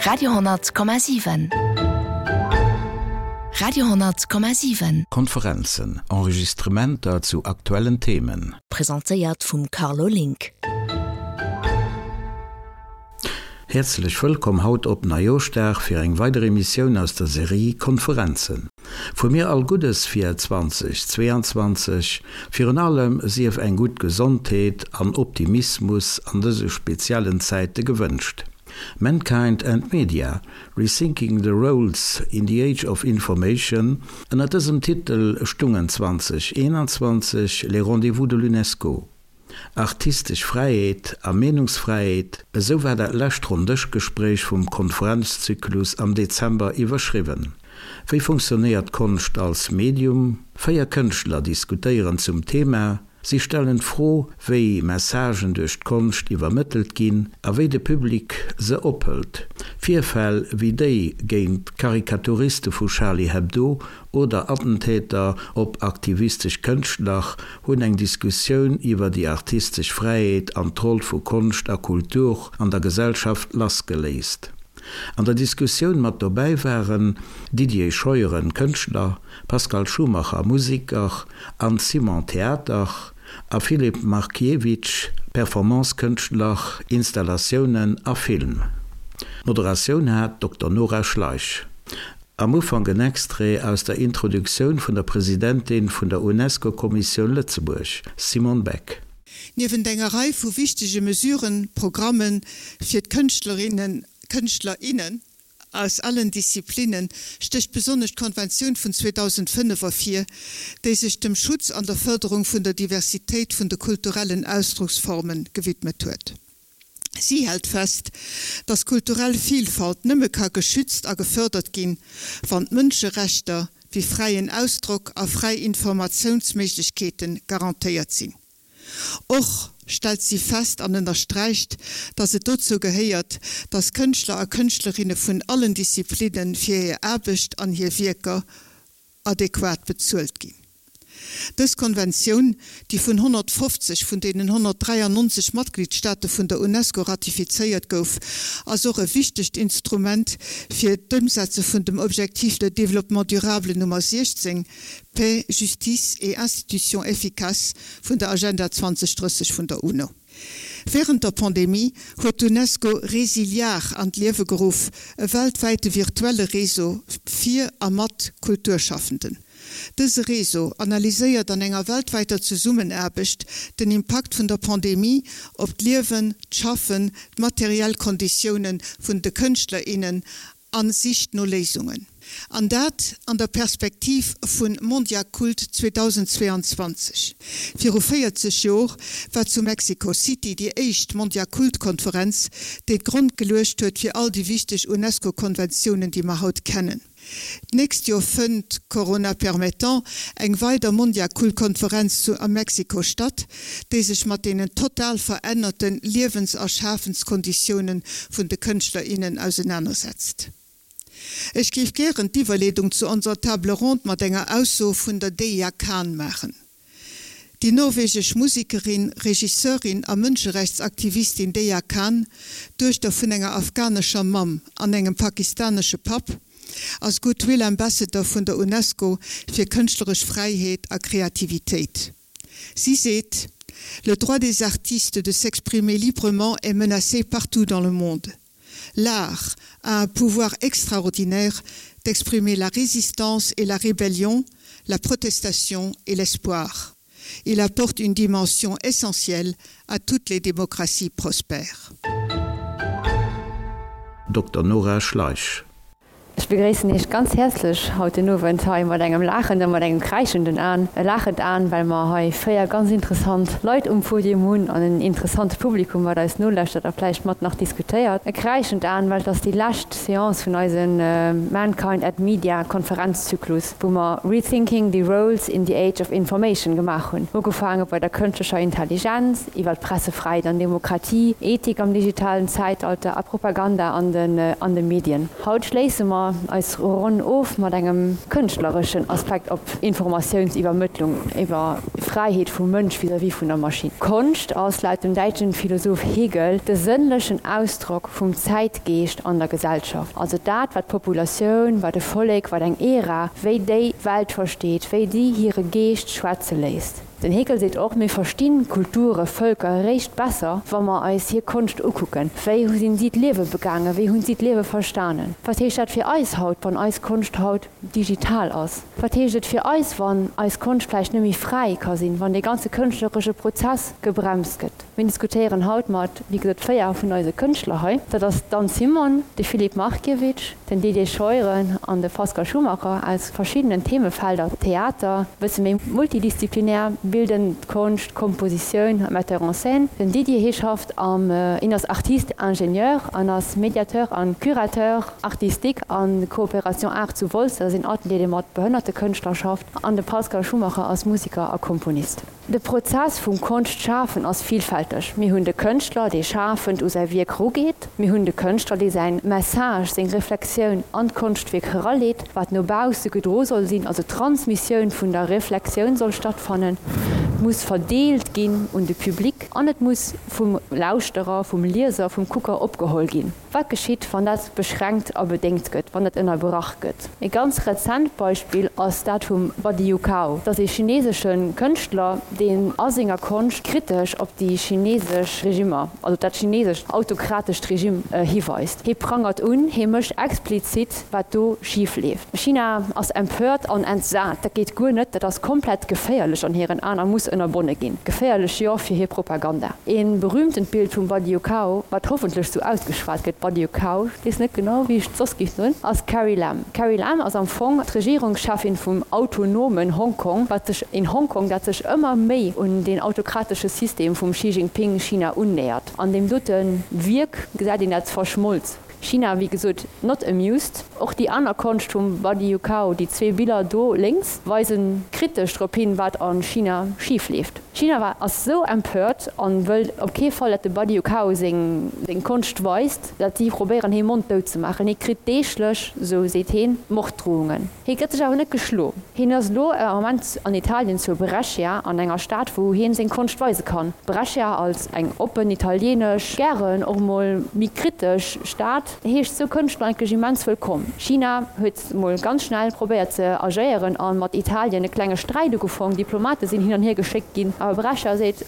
Radio,7 Radio,7. Konferenzen, Enregistrementer zu aktuellen Themen. Presentéiert vum Carlo Link. Häerzlech wëllkomm haut op Neijooschdag fir eng weider Emissioun aus der Serie Konferenzen. Vu mir all Guddes fir 2022, virun allem sief eng gutt Gesondheet an Optimismus an dëse speziellen Zäite gewënscht. Mankind and Media, Rethinking the Roles in the Age of Information, ënner dësem Titel stungen 2021 les Rendez-vous de l'UNESCO. Artistesch Fräiheet a Meenungsfräiheet, esou war dat lescht Ronndëschgespréich vum Konferenzzyklus am Dezember iwwerschriwwen. Wéi funktionéiert Konscht als Medium? 4 Kënschtler diskutéieren zum Thema. Si stellen d'Fro, wéi Messagen duerch d'Konscht iwwermëttelt ginn a wéi de Public se ophëlt. Virfäll wéi déi géint d'Karikaturiste vu Charlie Hebdo oder Attentäter op aktivistesch Kënschtler hunn eng Diskussioun iwwer déi artistesch Fräiheet an d'Roll vu Konscht a Kultur an der Gesellschaft lassgeléist. An der Diskussioun mat dobäi waren, Didier Scheuren, Kënschtler, Pascal Schumacher, Museker, Anne Simon, Theater, a Filip Markiewicz, Performance-Kënschtler, Installatiounen a Film. D'Moderatioun hat d'Dokter Nora Schleich. Am Ufank en Extrait aus der Introduktioun vun der Presidentin vun der UNESCO-Kommissioun Lëtzebuerg, Simone Beck. Niewent enger Rei vu wichtege Mesuren, Programme fir d'Kënschtlerinnen, Kënschtler, innen aus allen Disziplinnen, stécht besonnesch d'Konventioun vun 2005 ervir, déi sech dem Schutz an der Fërderung vun der Diversitéit vun de kulturellen Ausdrucksforme gewidmet huet. Si hält fest, dass kulturell Vilfalt nëmme ka geschützt a gefërdert ginn, wann d'Mënscherechter wéi fräien Ausdrock a fräi Informatiounsméiglechkeete garantéiert sinn. Och stellt si fest an ënnersträicht, dass et dozou gehéiert, dass Kënschtler a Kënschtlerinne vun allen Disziplinne fir hir Aarbecht an hir Wierker adequat bezuelt ginn. Dës Konventioun, déi vun 150 vun deenen 193 Matgliedsstaate vun der UNESCO ratifizéiert gouf, ass och e wichtegt Instrument fir d'Ëmsetze vun dem Objectif de développement durable Nummer 16, Paix, justice et institutions efficaces, vun der Agenda 2030 vun der UNO. Wärend der Pandemie huet d'UNESCO Resiliar an d'Liewe geruff, e weltwäite virtuelle Réseau fir a mat Kulturschaffenden. Dëse Réseau analyséiert an enger weltwäiter Zesummenaarbecht den Impakt vun der Pandemie op d'Liewen, d'Schaffen, d'materiell Konditioune vun de Kënschtler, innen a sicht no Léisungen. An dat an der Perspektiv vu Mondiacult 2022. Viru 40 Jor war zu Mexico City déi éischt Mondiacult-Konferenz, déi d'Grond geluecht huet fir all déi wichteg UNESCO-Konventiounen, déi mer haut kennen. D'nächst Jor fënnt, Corona permettant, eng weider Mondiacult-Konferenz zu a Mexiko statt, déi sech mat deenen total verännerte Liewens a Schaafenskonditiounen vun de Kënschtler, innen ausenanersetzt. Ech géif gären d'Iwwerleedung zu onserer Table ronde mat enger Ausso vun der Deja Khan maachen. Déi norwegesch Musekerin, Regisseurin a Mënscherechtsaktivistin Deya Khan, Duechter vun enger afghanescher Mamm an engem pakistanesche Papp, ass Goodwill Ambassador vun der UNESCO fir kënschtleresch Fräiheet a Kreativitéit. Si seet, Le droit des artistes de s'exprimer librement est menacé partout dans le monde. L'art a un pouvoir extraordinaire d'exprimer la résistance et la rébellion, la protestation et l'espoir. Il apporte une dimension essentielle à toutes les démocraties prospères. Dr Nora Schleich. Ech begréissen Iech ganz häerzlech haut den Owend hei mat engem laachenden, mat engem kräischenden Aan. E laachend Aan, well mer hei 4 ganz interessant Leit um Podium hunn an en interessante Publikum, wat eis nolauschtert a vläicht mat nach diskutéiert. E kräischend Aan, well et ass déi lescht Seance vun eise Mankind at Media Konferenzzyklus, wou mer Rethinking the Roles in the Age of Information gemaach hunn, ugefaange bei der kënschtlecher Intelligenz, iwwer d'Pressefräiheet an Demokratie, Ethik am digitalen Zäitalter a Propaganda an de Medien. Haut schléisse mer. mer eis Ronn of mat engem kënschtlereschen Aspekt op Informatiounsiwwermëttlung, iwwer Fräiheet vum Mënsch vis-à-vis vun der Maschinn. Konscht ass laut dem däitschen Philosoph Hegel de sënnlechen Ausdrock vum Zäitgeescht an der Gesellschaft, also dat wat d'Populatioun, wat e Vollek, wat eng Ära, wéi déi d'Welt versteet, wéi déi hire Geescht schwätze léisst. Den Hegel seet och, Mir verstinn Kulture, Vëlker eréischt besser, wa mer eis hir Konscht ukucken. Wéi hu sinn si d'Liewe begaangen? Wéi hunn si d'Liewe verstanen? Wat heescht dat fir eis haut, wann eis Konscht haut digital ass? Wat heescht et fir eis, wann eis Konscht vläicht net méi fräi ka sinn, wann dee ganze kënschtleresche Prozess gebremst gëtt? Mir diskutéieren haut mat, wéi gesot, 4 vun eise Kënschtler hei. Dat ass d'Anne Simon, de Filip Markiewicz, den Didier Scheuren an de Pascal Schumacher aus verschiddenen Themefelder, Theater, e bësse méi multidisziplinär, bildend Konscht, Kompositioun, Metteur en scène. Den Didier, hie schafft am, hien ass Artiste ingénieur an ass Médiateur an Curateur artistique an Coopération Art zu Wolz, dat ass een Atelier, dee mat behënnerte Kënschtler schafft. An de Pascal Schumacher ass Musiker a Komponist. De Prozess vum Konscht-Schafen ass villfälteg. Mir hunn de Kënschtler, dee schafend u säi Wierk rugeet. Mir hunn de Kënschtler, dee säin Message, seng Reflexioun an d'Konschtwierk eraleet, wat no bausse gedro soll sinn, also d'Transmissioun vun der Reflexioun soll stattfannen, et muss verdeelt ginn un de Public an et muss vum Lauschterer, vum Lieser, vum Kucker opgeholl ginn. Wat geschitt, wann dat beschränkt a bedéngt gëtt, wann dat ënnerbrach gëtt? E ganz rezent Beispill ass dat vum Badiou Kao. Dat ass ee chinesesche Kënschtler, deen a senger Konscht kritesch op déi chinesesch Regimmer, also dat chinesescht autokratescht Regime hiweist. Hie prangert un, hie mécht explizit, wat do schif leeft. China ass empört an entsat. Dat geet guer net, dat ass komplett geféierlech an hiren Aen a muss ënnerbonne ginn. Geféierlech, jo, fir hir Propaganda. Ee berühmtent Bild vum Badiou Kao, wat hoffentlech sou ausgeschwat gëtt, Badiou Kao, ech weess net genau wéi ech et soss géif soen, ass d'Carrie Lam. D'Carrie Lam ass am Fong d'Regierungscheffin vum autonomen Hongkong, wat sech, een Hongkong dat sech ëmmer méi un deen autokratesche System vum Xi Jinping China unnähert. An deem dote Wierk gesäit een dat verschmolz. China wéi gesot not amused. Och déi aner Konscht vum Badiou Kao, déi zwee Biller do lénks, weisen kritesch drop hin, wat a China schif leeft. China war ass sou empört an wëll op kee Fall dat de Badiou Kao seng seng Konscht weist, dat si probéieren hee Mond dout ze maachen. Hie kritt deeglech, sou seet heen, Morddrohungen. Hie gëtt sech awer net geschlo. Hien ass elo am Moment an Italien zu Brescia, an enger Stad wou hien seng Konscht weise kann. Brescia als eng oppen italienesch, gären och mol méi kritesch Stad, heescht sou Kënschtler eigentlech immens wëllkomm. China huet mol ganz schnell probéiert ze agéieren a mat Italien e klenge Sträit ugefong. Diplomate sinn hin an hier geschéckt ginn. Awer Brescia seet,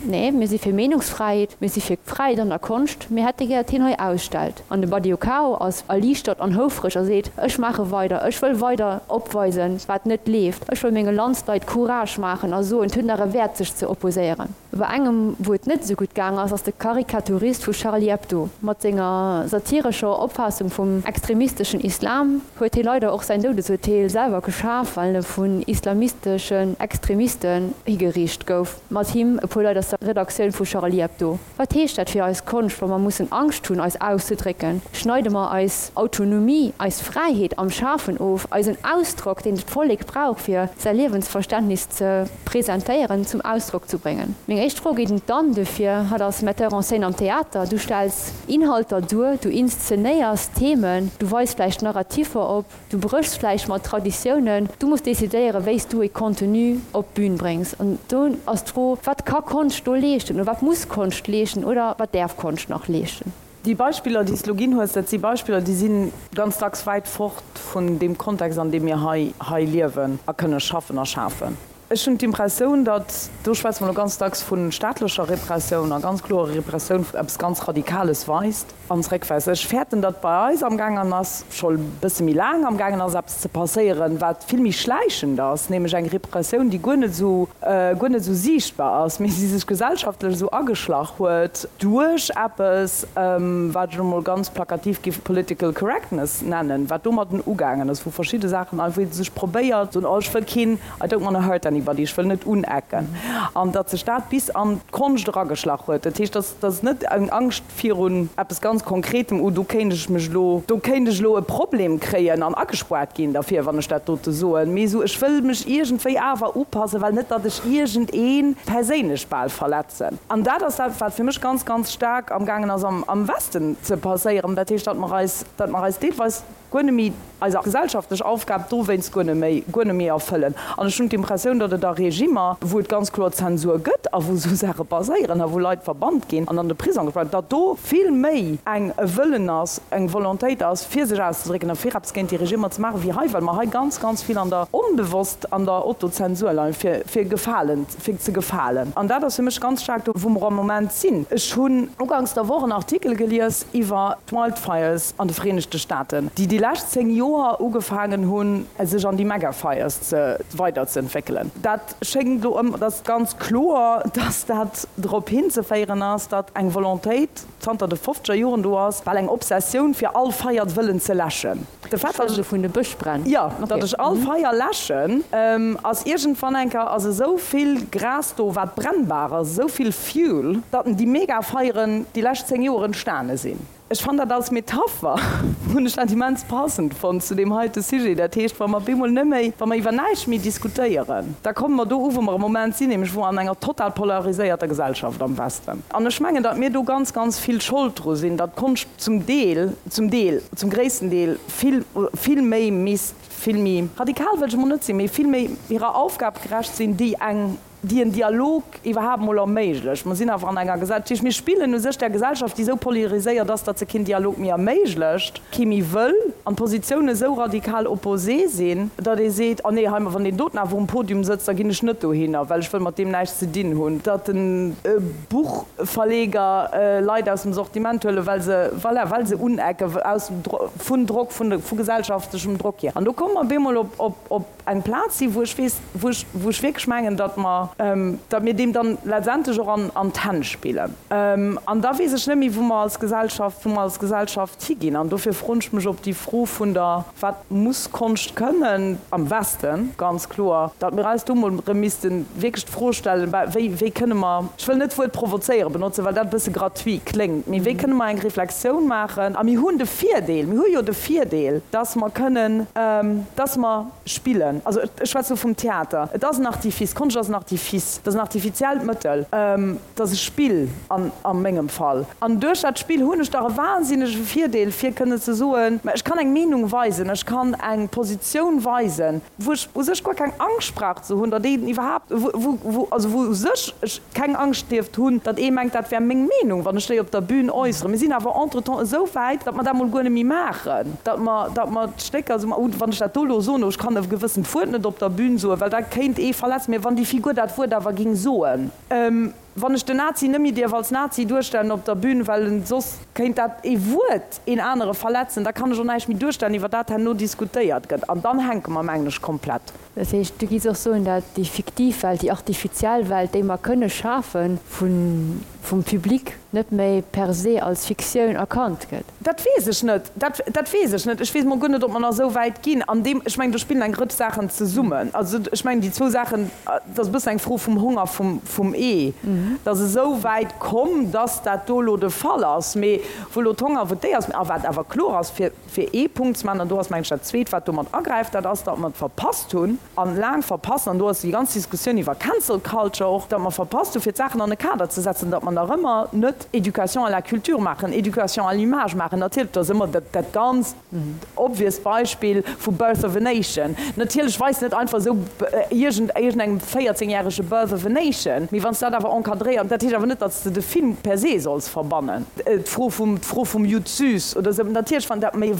Nee, mir si fir Meenungsfräiheet, mir si fir Fräiheet an der Konscht, mir hätte gär, datt hien hei ausstellt. An de Badiou ass erliichtert an houfreg a seet, Ech maache weider, ech wëll weider opweisen, wat net leeft. Ech wëll menge Landsleit Courage maachen a soen, et huet nach e Wäert, sech ze opposéieren. Bei engem, wou et net esou gutt gaang ass, ass de Karikaturist vu Charlie Hebdo. Mat senger satirescher Opfaassung vum extremisteschen Islam huet hie leider och säin Doudesurteel selwer geschaf, well e vun islamisteschen Extremisten higeriicht gouf, mat him e puer Leit aus der Redaktioun vu Charlie Hebdo. Wat heescht dat fir eis Konscht, wa mer mussen Angscht hunn, eis auszedrécken? Schneide mer eis Autonomie, eis Fräiheet am Schafen of, eisen Ausdrock, deen d'Vollek brauch, fir säi Liewensverständnis ze presentéieren, zum Ausdrock zu bréngen? Meng éischt Fro geet un d'Anne duerfir. Hatt ass Metteur en scène am Theater. Du stells Inhalter duer, du inszenéiers Themen, du weis vläicht Narrativer op. Du bréchs vläicht mat Traditiounen, du muss decidéieren, wéi s du e Contenu op d'Bün bréngs. An do ass d'Fro, Wat ka Konscht do leeschten oder wat muss Konscht leeschten oder wat däerf Konscht nach leeschten? Déi Beispiller, déi s de elo ginn hues, dat si Beispiller, déi si ganz dacks wäit fort vun deem Kontext, an deem mir hei hei liewen a kënne schaffen a schafen. Ech hunn d'Impressioun, datt, do schwätze mer elo ganz dacks vu staatlecher Repressioun a ganz klorer Repressioun, eppes ganz Radikales weist an zeréckweist. Ech fäerten, datt bei eis amgaangen ass, scho e bësse méi laang amgaangen ass, eppes ze passéieren, wat vill méi schläichend ass, nämlech eng Repressioun, déi guer net esou, guer net esou siichtbar ass, mee déi sech gesellschaftlech esou ageschlach huet duerch eppes, wat ech elo mol ganz plakativ géif political correctness nennen, wat domadden ugaangen ass, wou verschidde Saachen einfach, wou ee sech probéiert, soen, oh ech wëll keen, I don't wanna hurt anybody, ech wëll net unecken, an datt sech dat bis an d'Konscht erageschlach huet. Dat heescht, datt ass net eng Angscht virun eppes ganz Konkretem, oh do kéint ech mech elo, do kéint ech elo e Problem kréien an agespoart ginn derfir, wann ech dat dote soen, mee esou, ech wëll mech iergendwéi awer upassen, well net datt ech iergendee perséinlech bal verletzen. An dat ass dat, wat fir mech ganz, ganz staark amgaangen ass am Westen ze passéieren. Dat heescht, datt mer eis, datt mer eis deelweis. Guer net méi eis gesellschaftlech Aufgab dowéinst guer net méi, guer net méi erfëllen. An ech hunn d'Impressioun, datt et a Regimer, wou et ganz kloer Zensur gëtt a wou esou Saache passéieren a wou Leit verbannt ginn an an de Prisong gespaart, datt do vill méi eng e Wëllen ass, eng Volontéit ass, fir sech auszedrécken a fir eppes géint déi Regimer ze maachen, wéi hei, well mer hei ganz, ganz vill an der, onbewosst an der Autozensur leien, fir, fir gefalen, fir ze gefalen. An dat ass fir mech ganz staark do, wou mer am Moment sinn. Ech hunn uganks der Woch en Artikel gelies iwwer d'Wildfires an de Vereenegte Staaten, déi déi lescht 10 Joer ugefaangen hunn, sech an déi Megafires ze weiderzeentwéckelen. Dat schéngt elo ëm, dat ass ganz kloer, dass dat drop hinzeféieren ass, datt eng Volontéit zanter de fofzeger Joren do ass, bal eng Obsessioun, fir all Feier wëllen ze läschen. De Fait, datt ech vun de Bëschbränn. Jo, datt ech all Feier läschen, ass iergendwann eng Kéier ass esou vill Gras do, wat brennbar ass, esou vill Fuel, datt déi Megafeieren déi lescht 10 Joer entstane sinn. Ech fann dat als Metapher, hunn ech dat immens passend fonnt zu deem heite Sujet. Dat heescht, wa mer op eemol net méi, wa mer iwwer näischt méi diskutéieren, da komme mer do u wou mer am Moment sinn, nämlech wou an enger total polariséierter Gesellschaft am Westen. An ech mengen, datt mir do ganz, ganz vill Schold dru sinn, datt d'Konscht zum Deel, zum Deel, zum gréissten Deel vill, vill méi misst, vill méi radikal wëll ech emol net sinn, mee vill méi hirer Aufgab gerecht sinn, déi eng, déi en Dialog iwwerhaapt mol erméiglecht. Mer sinn awer an enger Gesellschaft, dat heescht, mir spillen u sech där Gesellschaft, déi esou polariséiert ass, datt se keen Dialog méi erméiglecht, kee méi wëll, an d'Positiounen esou radikal opposé sinn, datt ee seet, oh nee, hei, wann deen doten awer um Podium sëtzt, da ginn ech net dohinner, well ech wëll mat deem näischt ze dinn hunn. Datt de Buchverleger Leit aus dem Sortiment huelen, well se, voilà, well se unecken, aus vun Drock, vu gesellschaftlechem Drock hier. An do komme mer op eemol op, op. eng Plaz sinn, wou ech weess, wou ech, wou ech wierklech mengen, datt mer, datt mir deem dann letztendlech och an, an d'Hänn spillen. An da weess ech net méi, wou mer als Gesellschaft, wou mer als Gesellschaft higinn. An dofir froen ech mech, ob déi Fro vun der, wat muss Konscht kënnen, am Westen, ganz kloer, datt mir eis do emol erëm misste wierklech d'Fro stellen, wéi, wéi kënne mer, ech wëll net d'Wuert provozéieren benotzen, well dat e bësse gratuit kléngt, mee wéi kënne mer eng Reflexioun maachen? A mir hunn de Virdeel, mir hu jo de Virdeel, dass mer kënnen, dass mer spillen. Also ech schwätze lo vum Theater. Et ass en Artifice, Konscht ass en Artifice, et ass en artifiziellt Mëttel, et ass e Spill an a mengem Fall. An duerch dat Spill hunn ech dach e wahnsinnege Virdeel, fir kënnen ze soen, mä ech kann eng Meenung weisen, ech kann eng Positioun weisen, wou ech u sech guer keng Angscht brauch ze hunn, datt een iwwerhaapt, wou, wou, also wou u sech ech keng Angscht dierft hunn, datt ee mengt, dat wär meng Meenung, wann ech déi op der Bühn äusseren. Mir sinn awer entretemps esou wäit, datt mer dat mol guer net méi maachen, datt mer, datt mer d'Stécker esou, oh, wann ech dat do elo soen, oh, ech kann e gewëssent Wuert net op der Bühn soen, well dat kéint ee verletzen, mä wann déi Figur dat Wuert awer géing soen. Wann ech den Nazi net méi dierf als Nazi duerstellen op der Bühn, well en soss kéint dat ee Wuert een anere verletzen, da kann ech och näischt méi duerstellen, iwwer dat herno diskutéiert gëtt. An dann hänke mer, mengen ech, komplett. Dat heescht, du giffs och soen, dat déi fiktiv Welt, déi artifiziell Welt, déi mer kënne schafen, vum Public net méi per se als Fiktioun erkannt gëtt? Dat weess ech net. Dat, dat weess ech net. Ech weess mol guer net, ob mer nach esou wäit ginn. An deem, ech mengen, do spillen eng Rëtsch Saachen zesummen. Also ech mengen, déi zwou Saachen, dat ass e bëssen eng Fro vum Hong a vum, vum Ee. Et ass esou wäit komm, dass dat do elo de Fall ass. Mee wou elo d'Hong a wou d'Ee ass. A wat awer kloer ass, fir, fir ee Punkt ze maachen, an do ass, mengen ech, dat Zweet, wat domat agräift, dat ass, datt mer et verpasst hunn, an laang verpassen, an do ass déi ganz Diskussioun iwwer Cancel Culture och, datt mer verpasst hunn, fir d'Saachen an e Kader ze setzen, datt mer nach ëmmer net Éducation à la culture maachen, Éducation à l'image maachen. Natierlech, dat ass ëmmer dat, dat ganz obvious Beispill vu Birth of a Nation. Natierlech weist net einfach esou iergend, iergendengem véierzéngjärege Birth of a Nation, mee wann s de dat awer encadréiert, dat heescht awer net, datt s de de Film per se solls verbannen. D'Fro vum, d'Fro vum Judd Süss oder esou, natierlech, wann dat, mee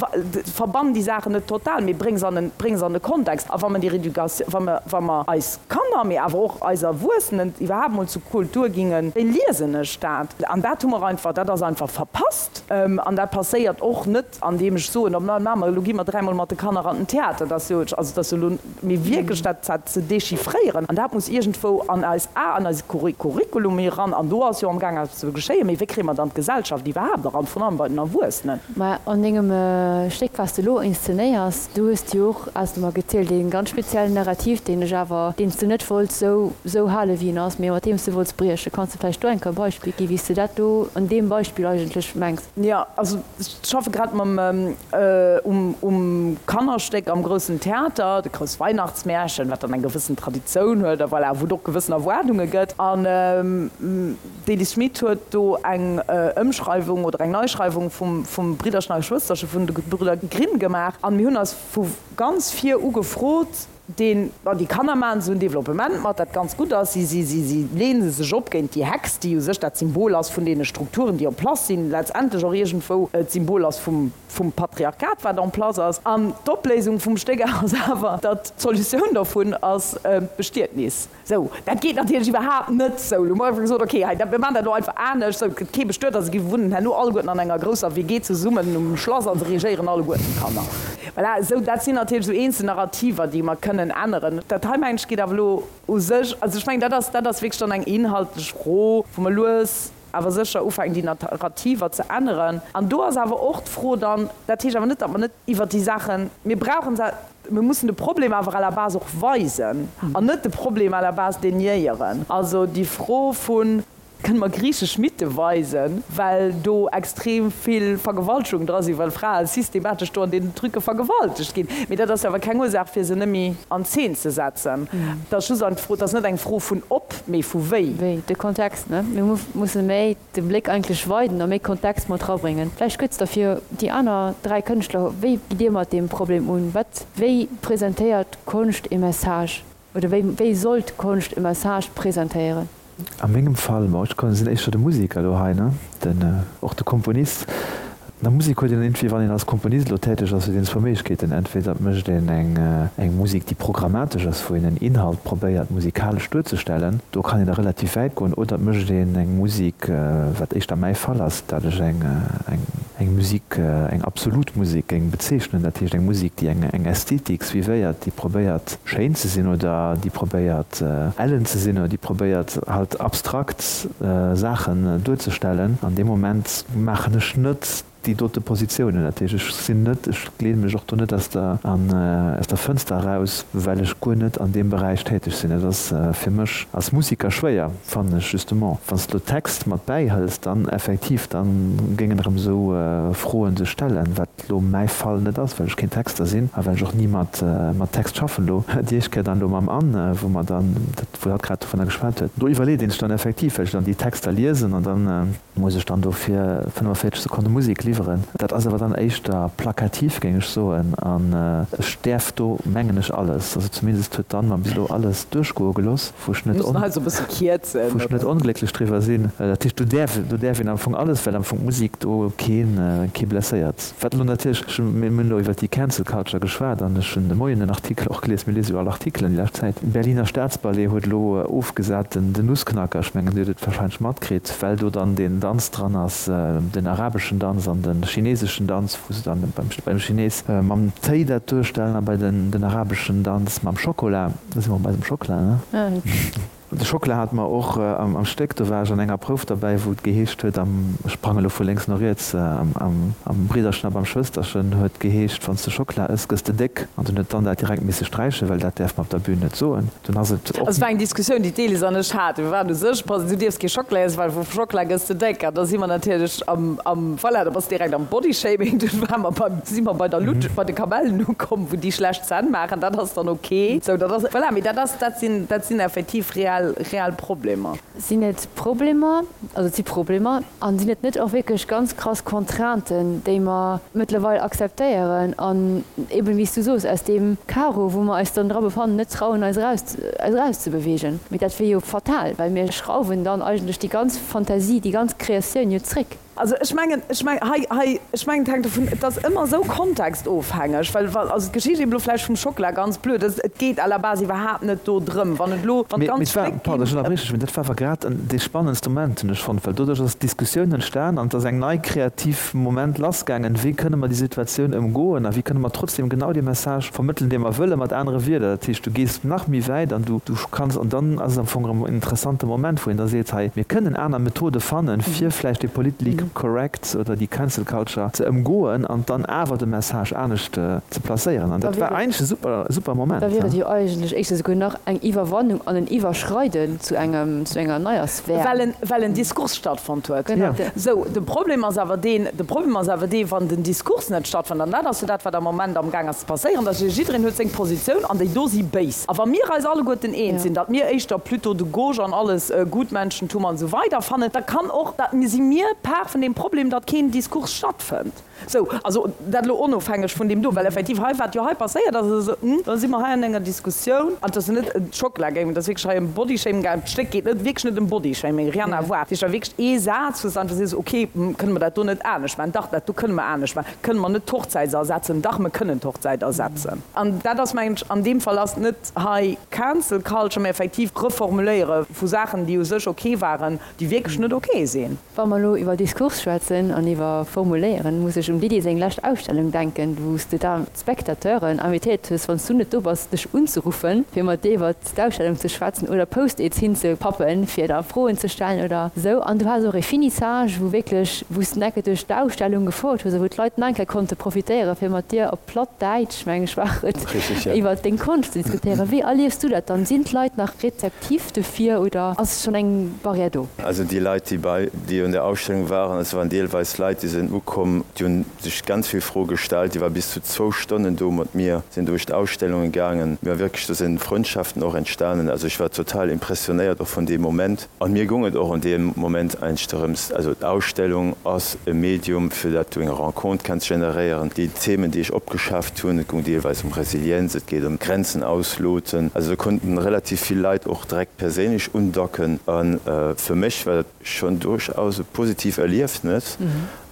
verbann déi Saachen net total, mee bréng se an en, bréng se an e Kontext. A wa mer déi Réducation, wa mer, wa mer eis Kanner, mee awer och eis Erwuessenen iwwerhaapt mol zu Kultur gingen, wéi liesen ech dat? An dat hu mer einfach, dat ass einfach verpasst. An dat passéiert och net, andeem ech soen, oh, ma mer, elo gi mer dräimol mat de Kanner an den Theater. Dat ass jo, also dat ass jo elo, mee wierklech dat, dat ze dechiffréieren, an dat muss iergendwou an eis, a an eise Curriculum eran. An do ass jo amgaang eppes ze geschéien. Mee wéi kréie mer dann d'Gesellschaft iwwerhaapt eran, vrun allem bei den Erwuessenen? Mä an dengem Stéck, wat s de elo inszenéiers, do hues de jo och, has de mer gezielt, ee ganz speziellen Narrativ, deen ech awer, deen s de net wollts esou, esou hale wéi en ass, mee mat deem s de wollts briechen. Kanns de vläicht do eng Kéier e Beispill ginn, wéi s de dat do an deem Beispill eigentlech mengs? Jo, also ech schaffe grad mam, um, um Kannerstéck am Groussen Theater, de Grouss Weihnachtsmärchen, wat dann eng gewëssen Traditioun huet a voilà, wou et och gewëssen Erwaardunge gëtt. An. D'Elise Schmit huet do eng Ëmschreiwung oder eng Neischreiwung vum Bridderchen a Geschwësterche vun de Gebrüder Grimm gemaach. An mir hunn eis vu ganz vir u gefrot, deen, bon, déi Kanner maachen esou en Developpement mat, dat ganz gutt ass, si, si, si, si leene sech op géint déi Hex, déi u sech dat Symbol ass vun deene Strukturen, déi en place sinn, letztendlech och iergendwou d'Symbol ass vum, vum Patriarchat, wat en place ass. An d'Opléisung vum Stéck ass awer, datt d'Solutioun dovun ass d'Bestietnis. Sou, dat geet natierlech iwwerhaapt net. Sou, elo hu mer einfach gesot, okay, hei, mir maachen dat elo einfach anescht. Sou, et gëtt kee bestuet a se gi wunnen herno alleguerten an enger grousser WG zesummen um Schlass a se regéieren alleguerten d'Kanner. Voilà, sou, dat sinn natierlech esou eenzel Narrativer, déi mer kënnen änneren. Dat hei, mengen ech, geet awer elo u sech, also ech mengen, dat ass, dat ass wierklech dann eng inhaltlech Fro, wou mer lues awer sécher ufänken, déi Narrativer ze änneren. An do ass awer och d'Fro dann, dat heescht awer net, datt mer net iwwert déi Saachen, mir brauchen se, mir mussen de Problem awer à la base och weisen an net de Problem à la base déniéieren. Also déi Fro vu kënne mer griichesch Mythe weisen, well do extrem vill Vergewaltegungen dra sinn, well Frae systematesch do an deenen Trucke vergewaltegt ginn. Mee dat ass jo awer keng Ursaach, fir se net méi an Zeen ze setzen. Et ass just eng Fro, et ass net eng Fro vun ob, mee vu wéi. Wéi, de Kontext. Ne? Mir musse méi de Bléck eigentlech weiden a méi Kontext mat rabréngen. Vläicht kuerz da fir déi aner 3 Kënschtler, wéi gitt Dir mat deem Problem un? Wat, wéi presentéiert Konscht e Message oder wéi, wéi sollt Konscht e Message presentéieren? A mengem Fall, bon, ech sinn éischter de Museker elo hei, ne, den, och de Komponist. An der Musek huet een entweder, wann een als Komponist elo täteg ass, huet een zwou Méiglechkeeten, Entweder et mécht een eng eng Musek, déi programmatesch ass, wou een en Inhalt probéiert musikalesch duerzestellen, do kann een da relativ wäit goen, oder et mécht een eng Musek, wat éischter mäi Fall ass, dat ech eng eng eng Musek, eng absolut Musek géing bezeechnen, dat heescht eng Musek, déi eng eng Ästhetik suivéiert, déi probéiert schéin ze sinn oder déi probéiert ellen ze sinn oder déi probéiert halt abstrakt Saachen duerzestellen. An deem Moment maachen ech net déi dote Positiounen. Dat heescht, ech sinn net, ech leeë mech och do net aus der, aus der Fënster eraus, well ech guer net an deem Beräich täteg sinn. Dat ass fir mech als Musiker schwéier, fannen ech justement. Wann s de elo Text mat bäihëls, dann effektiv, da géingen erëm esou Froen sech stellen, wat elo mäi Fall net ass, well ech keen Texter sinn a well ech och ni mat, mat Text schaffen elo. Déi éischt Kéier dann elo mam Anne, wou mer dann dat, wou hatt grad dovunner geschwat huet, do iwwerleet een sech dann effektiv, well ech dann déi Texter liesen an dann muss ech dann do fir 45 Sekonne Musek liwweren. Dat ass awer dann éischter plakativ, géing ech soen, an ech däerf do, mengen ech, alles, also zumindest huet d'Anne mer bis elo alles duerchgoe gelooss, wou ech net, wou ech net onglécklech driwwer sinn. Dat heescht, do däerf, do däerf een am Fong alles, well am Fong d'Musek do keen, kee blesséiert. Wat elo natierlech, ech hunn, mir hunn elo iwwert déi Cancel Culture geschwat an ech hunn de Moien en Artikel och gelies, mir liese jo all Artikelen déi lescht Zäit, den Berliner Staatsballet huet elo ofgesat den den Nussknacker, ech mengen Dir hutt et wahrscheinlech matkritt, well do dann deen Danz dran ass, den arabeschen Danz an de chineseschen Danz, wou se dann beim beim Chines mam Téi dat duerstellen a bei den den arabeschen Danz mam Schokola, do si mer bei eisem Schockela, ne? De Schockela hate mer och am Stéck. Do war ech an enger Prouf derbäi, wou et geheescht huet, am, ech sprange lo vu lénks no riets, am Bridderchen a beim Schwësterchen huet geheescht, Wann s de Schockela ëss, gëss de déck. An dunn huet d'Anne dat direkt misse sträichen, well dat däerf mer op der Bühn net soen. Dunn ass et och. Et war eng Diskussioun, déi d'Elise an ech haten. Mir waren u sech, du dierfs kee Schockela iessen, well vu Schockela gëss de déck. An da si mer natierlech am, am, voilà, da bass de direkt am Bodyshaming. Dunn ware mer beim, si mer bei der Lutsch, bei de Kamellen ukomm, wou déi schlecht Zänn maachen. Dat ass dann ok. Sou, dat ass, voilà, mee dat ass, dat sinn, dat sinn effektiv reell, reell Problemer. Sinn et Problemer, also et si Problemer, a sinn et net och wierklech ganz krass Contrainten, déi mer mëttlerweil akzeptéieren an eben, wéi s du soos, aus deem Karo, wou mer eis dann dra befannen, net trauen, eis eraus, eis erauszebewegen. Mee dat wier jo fatal, well mir schrauwen dann eigentlech déi ganz Fantasie, déi ganz Kreatioun jo zréck. Also ech mengen, ech mengen, hei, hei, ech mengen, et hänkt dovun, et ass ëmmer esou kontextofhängeg, well wa, also d'Geschicht eben elo vläicht vum Schockela, ganz blöd, et, et geet à la base iwwerhaapt net do drëm, wann et elo, wann Mee, mee d'ganz et war, Stéck pardon, ech ginn. ënnerbrieche dech, mee dat war awer grad en, dee spannendste Moment, hunn ech fonnt, well doduerch ass d'Diskussioun entstan an et ass eng nei kreativ Moment lassgaangen, wéi kënne mer déi Situatioun ëmgoen a wéi kënne mer trotzdem genau dee Message vermëttelen, dee mer wëllen, mat anere Wierder. Dat heescht, du gees nach méi wäit an du, du kanns, an dann ass et am Fong erëm en interessante Moment, wou een da seet, hei, mir kënnen aner Methode fannen, fir vläicht dee. correct oder déi Cancel Culture ze ëmgoen an dann awer de Message anescht ze placéieren. An dat war eigentlech e super, super Moment. Da wier et jo eigentlech éischter souguer nach eng Iwwerwannung an en Iwwerschreiden zu engem, zu enger neier Sphär. Well en, well en Diskurs stattfonnt huet. Genau. Sou, de Problem ass awer deen, de Problem ass awer dee, wann den Diskurs net stattfënnt, an dat ass jo dat, wat am Moment amgaang ass ze passéieren, dass jiddereen huet seng Positioun an déi do si béis. A wa mir eis alleguerten eens sinn, datt mir éischter plutôt de gauche an alles Gutmenschentum an esou weider fannen, da kann och, da si mir Part vun deem Problem, datt keen Diskurs stattfënnt. Sou, also dat elo onofhängeg vun deem do, well effektiv hei, wat jo hei passéiert ass, ass esou, hm, da si mer hei an enger Diskussioun, an et ass jo net ëm d'Schockela gaangen, et ass wierklech hei ëm Bodyshaming gaangen, d'Stéck geet net, wierklech net ëm Bodyshaming, rien à voir, dat heescht, war wierklech ee Saz, wou s de einfach sees, okay, hm, kënne mer dat do net anescht maachen? Dach, dat do kënne mer anescht maachen. Kënne mer net d'Hochzäit ersetzen? Dach, mer kënnen d'Hochzäit ersetzen. An dat ass, mengen ech, an deem Fall ass net hei Cancel Culture, mä effektiv Reformuléiere vu Saachen, déi u sech ok waren, déi wierklech net ok sinn. Wa mer elo iwwer Diskurs schwätzen an iwwer Formuléieren, muss ech um Didier seng lescht Ausstellung denken, wou s de da d'Spectateuren invitéiert hues, wann s du net do bass, dech unzeruffen, fir mat dir iwwer d'Ausstellung ze schwätzen oder Post-its hinzepappen, fir da Froen ze stellen oder esou. An du has och e Finissage, wou wierklech, wou s de enke duerch d'Ausstellung gefouert hues a wou d'Leit nach eng Kéier konnte profitéieren, fir mat dir op platt Däitsch, meng ech war et, iwwer deng Konscht ze diskutéieren. Wéi erliefs du dat dann? Sinn d'Leit nach rezeptiv dofir oder ass schonn eng Barrière do? Also déi Leit, déi bei, déi un der Ausstellung waren, et waren deelweis Leit, déi sinn ukomm, déi hunn sech ganz vill Froe gestallt, déi war bis zu zwou Stonnen do mat mir, sinn duerch d'Ausstellungen gaangen, mir wierklech, do sinn Frëndschaften och entstanen, also ech war total impressionéiert och vun deem Moment an mir goung et och an deem Moment eigentlech dorëms, also d'Ausstellung ass e Medium fir dat du eng Rencontre kenns generéieren, déi Themen déi ech opgeschafft hunn, et goung deelweis ëm Resilienz, et geet ëm Grenzen ausloten, also do konnten relativ vill Leit och direkt perséinlech undocken an fir mech war dat schonn duerchaus e positiv Erliefnes.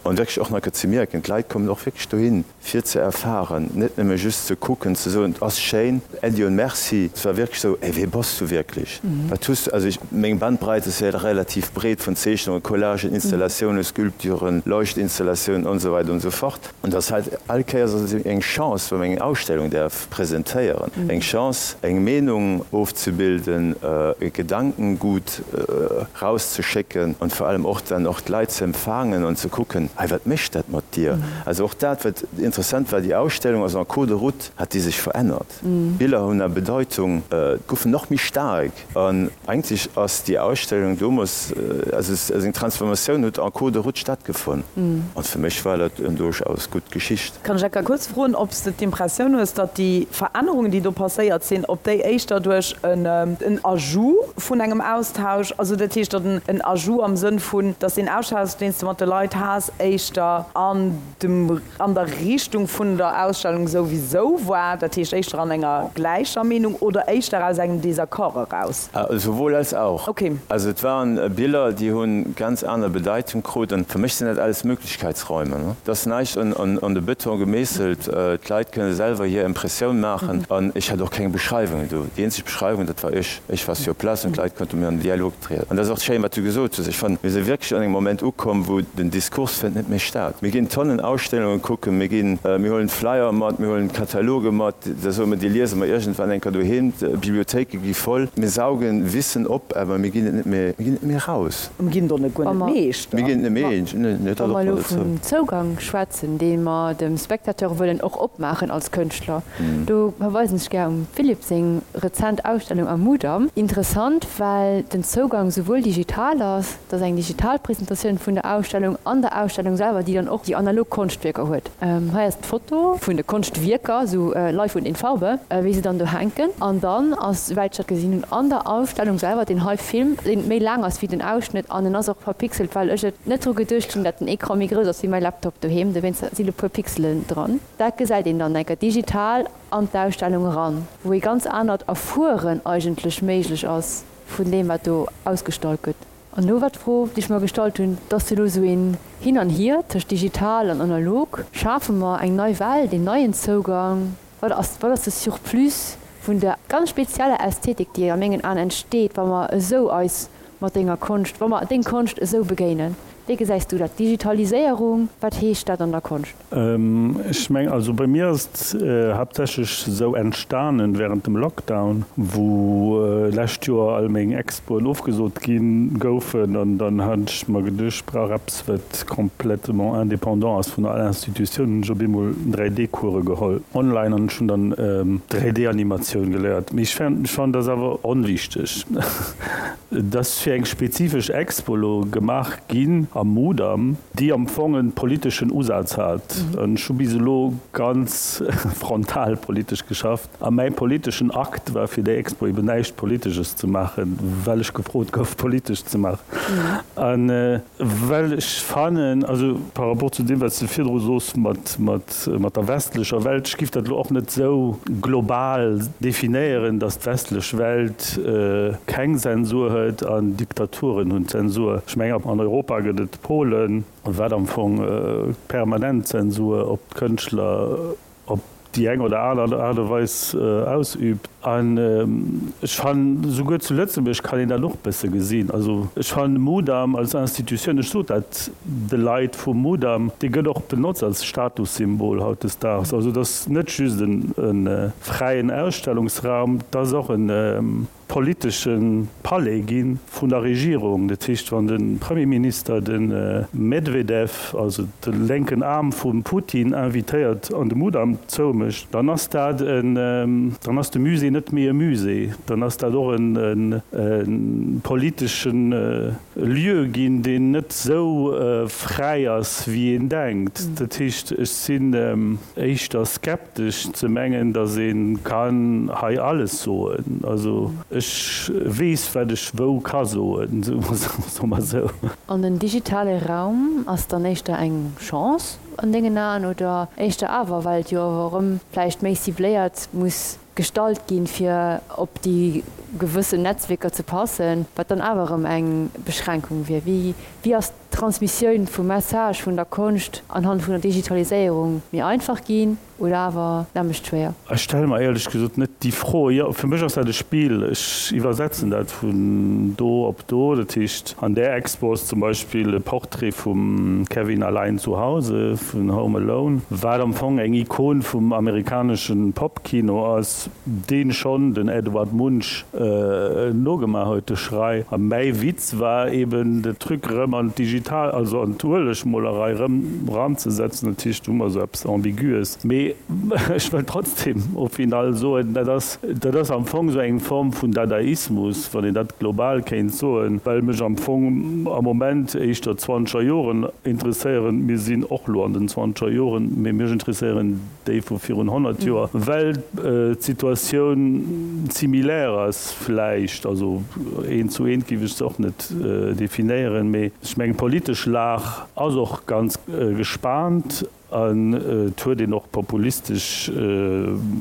An wierklech och nach ze mierken, d'Leit kommen och wierklech dohin, fir ze erfahren, net nëmme just ze kucken, ze soen, et ass schéin, Äddi und Merci. Et war wierklech esou, Ey, wee bass du wierklech? Wat hues du? Also ech, meng Bandbreit ass jo relativ breet, vun Zeechnungen, Collagen, Installatiounen, Sculpturen, Leuchtinstallatiounen und esou weider und esou fort. An et ass halt all Kéiers ass et eng Chance, wa mer eng Ausstellung däerf presentéieren, eng Chance, eng Meenung ofzebilden, e Gedankengut rauszeschécken an vor allem och dann och d'Leit ze empfangen an ze kucken, hei wat mécht dat mat dir? Also och dat wat interessant war, déi Ausstellung ass en cours de route hat déi sech verännert, d'Biller hunn a Bedeutung, goufen nach méi staark an eigentlech ass déi Ausstellung domols, also eng Transformatioun huet en cours de route stattgefonnt an fir mech war dat en duerchaus gutt Geschicht. Kann ech enker kuerz froen, ob s de d'Impressioun hues, datt déi Verännerungen, déi do passéiert sinn, ob déi éischter duerch en Ajout vun engem Austausch, also dat heescht, datt en Ajout am Sënn vun, datt deen Austausch, deen s de mat de Leit has, éischter an dem, an der Richtung vun der Ausstellung souwisou war, dat heescht éischter an enger gläicher Meenung oder éischter aus engem Désaccord eraus? Sowohl als auch. Okay. Also et waren Biller, déi hu ganz aner Bedeitung krut. An fir mech sinn dat alles Möglichkeitsräume. Et ass näischt an de Beton gemeesselt. D'Leit kënne selwer hir Impressioun maachen. An ech hat och keng Beschreiwungen do. Déi eenzeg Beschreiwung, dat war ech. Ech war sur place an d'Leit konnte mat mir an den Dialog trieden. An dat ass och schéin, wat du gesot hues. Ech fannen, mir si wierklech an engem Moment ukomm, wou den Diskurs fënnt net méi statt. Mir ginn Tonnen Ausstellunge kucken, mir ginn, mir huelen Flyer mat, mir huelen Kataloge mat, da soe mer, déi liese mer iergendwann eng Kéier doheem. D'Bibliothéike gi voll. Mir saugen Wissen op, awer mir ginn et net méi, mir ginn et net méi eraus. Mir ginn do net guer net Meeschter. Mir ginn et net méi, dat och Wa mer nach elo dozou. vum Zougang schwätzen, dee mer dem Spectateur wëllen och opmaachen als Kënschtler, do verweisen ech gär um Philippe seng rezent Ausstellung am Mudam. Interessant, well den Zougang souwuel digital ass, dat ass eng digital Presentatioun vun der Ausstellung, an der Ausstellung selwer, déi dann och déi analog Konschtwierker huet. Hei ass d'Foto vun de Konschtwierker, sou live und in Farbe, wéi se dann do hänken. An dann ass, souwäit ech dat gesinn hunn, an der Ausstellung selwer deen hei Film, deen méi laang ass wéi den Ausschnëtt an en ass och verpixelt, well ech et net dru geduecht hunn, dat den Ecran méi grouss ass wéi mäi Laptop doheem, dowéinst sinn e puer Pixelen dran. Dat gesäit een dann enker digital an d'Ausstellung eran, wou ee ganz anert Erfueren eigentlech méiglech ass vun deem, wat do ausgestallt gëtt. An elo war d'Fro, déi ech mer gestallt hunn, et ass jo elo esou een Hin an Hier tëscht digital an analog, schafe mer eng nei Welt, een neien Zougang? Wat ass, wat ass de Surplus vun der ganz spezieller Ästhetik, déi a mengen Aen entsteet, wa mer esou eis mat denger Konscht, wa mer deng Konscht esou begéinen? Wéi gesäis du dat? Digitaliséierung, wat heescht dat an der Konscht? Ech mengen, also bei mir ass et haaptsächlech esou entstanen während dem Lockdown, wou lescht Joer all meng Expoen ofgesot gi goufen an dann hat ech mer geduecht, ech brauch eppes wat complètement indépendant ass vun all Institutioun. Hunn ech op eemol 3D-Course geholl online an ech hunn dann 3D-Animatioun geléiert. Mee ech fannen, dat ass awer onwichteg. Et ass fir eng spezifesch Expo elo gemaach ginn am Mudam, déi am Fong e politeschen Usaz hat. An ech hu bis elo ganz frontal politesch geschafft. A mäi politeschen Akt war fir déi Expo eben näischt Politesches ze maachen, well ech gefrot gouf politesch ze maachen. A well ech fannen, also par rapport zu deem wat s de virdru soos mat, mat der westlecher Welt, ech giff dat elo och net esou global definéieren, datt d'westlech Welt keng Zensur huet an Diktaturen hunn Zensur. Ech mengen an Europa gëtt et Polen, wat am Fong permanent Zensur op d'Kënschtler op déi eng oder aner Aart a Weis ausübt. An ech fannen, souguer zu Lëtzebuerg kann een dat och e bësse gesinn. Also ech fannen de Mudam als Institutioun, ech sot dat de Leit vum Mudam, dee gëtt och benotzt als Statussymbol hautdesdaags. Also et ass net just e fräien Ausstellungsraum, et ass och e politesche Palais gi vun der Regierung. Dat heescht, wann de Premierminister de Medwedew, also de lénken Aarm vum Putin, invitéiert an de Mudam zoumécht, dann ass dat en, dann ass de Musée net méi e Musée, dann ass dat och e politesche Lieu ginn, deen net esou fräi ass, wéi een denkt. Dat heescht, ech sinn éischter skeptesch. Skeptesch ze mengen, datt ee kann hei alles soen. Also ech weess, wat ech wou ka soen, soe mer esou. An den digitale Raum ass dann éischter eng Chance an dengen Aen oder éischter awer, well et jo awer erëm vläicht méi cibléiert muss gestalt ginn, fir op déi gewëssen Netzwierker ze passen, wat dann awer erëm eng Beschränkung wier? Wéi ass d'Transmissioun vum Message vun der Konscht anhand vun der Digitaliséierung méi einfach ginn oder awer nämmlecht schwéier? Ech stelle mer éierlech gesot net déi Fro. Jo, fir mech ass dat e Spill. Ech iwwersetzen dat vun do op do. Dat heescht, an där Expo ass zum Beispill e Portrait vum Kevin allein zu Hause vun Home Alone, wat am Fong eng Ikon vum amerikanesche Pop-Kino ass. Deen schonn den Edward Munch nogemaach huet, de Schrei. A mäi Witz war eben de Truc erëm an d'digital, also an d'Uelegmolerei erëm ranzesetzen. Dat heescht, do hu mer esou eppes Ambiguës. Mee ech wëll trotzdem au final soen, dat ass, dat ass am Fong esou eng Form vun Dadaismus, wann een dat global kéint soen, well mech am Fong am Moment éischter d'zwanzeger Joren interesséieren. Mir sinn och elo an den zwanzeger Joren, mee mech interesséieren déi vu virun 100 Joer, well d'Situatioun similaire ass vläicht, also eent zu eent géif ech se och net definéieren, mee ech mengen d'politesch Lag ass och ganz gespaant an et huet een och populistesch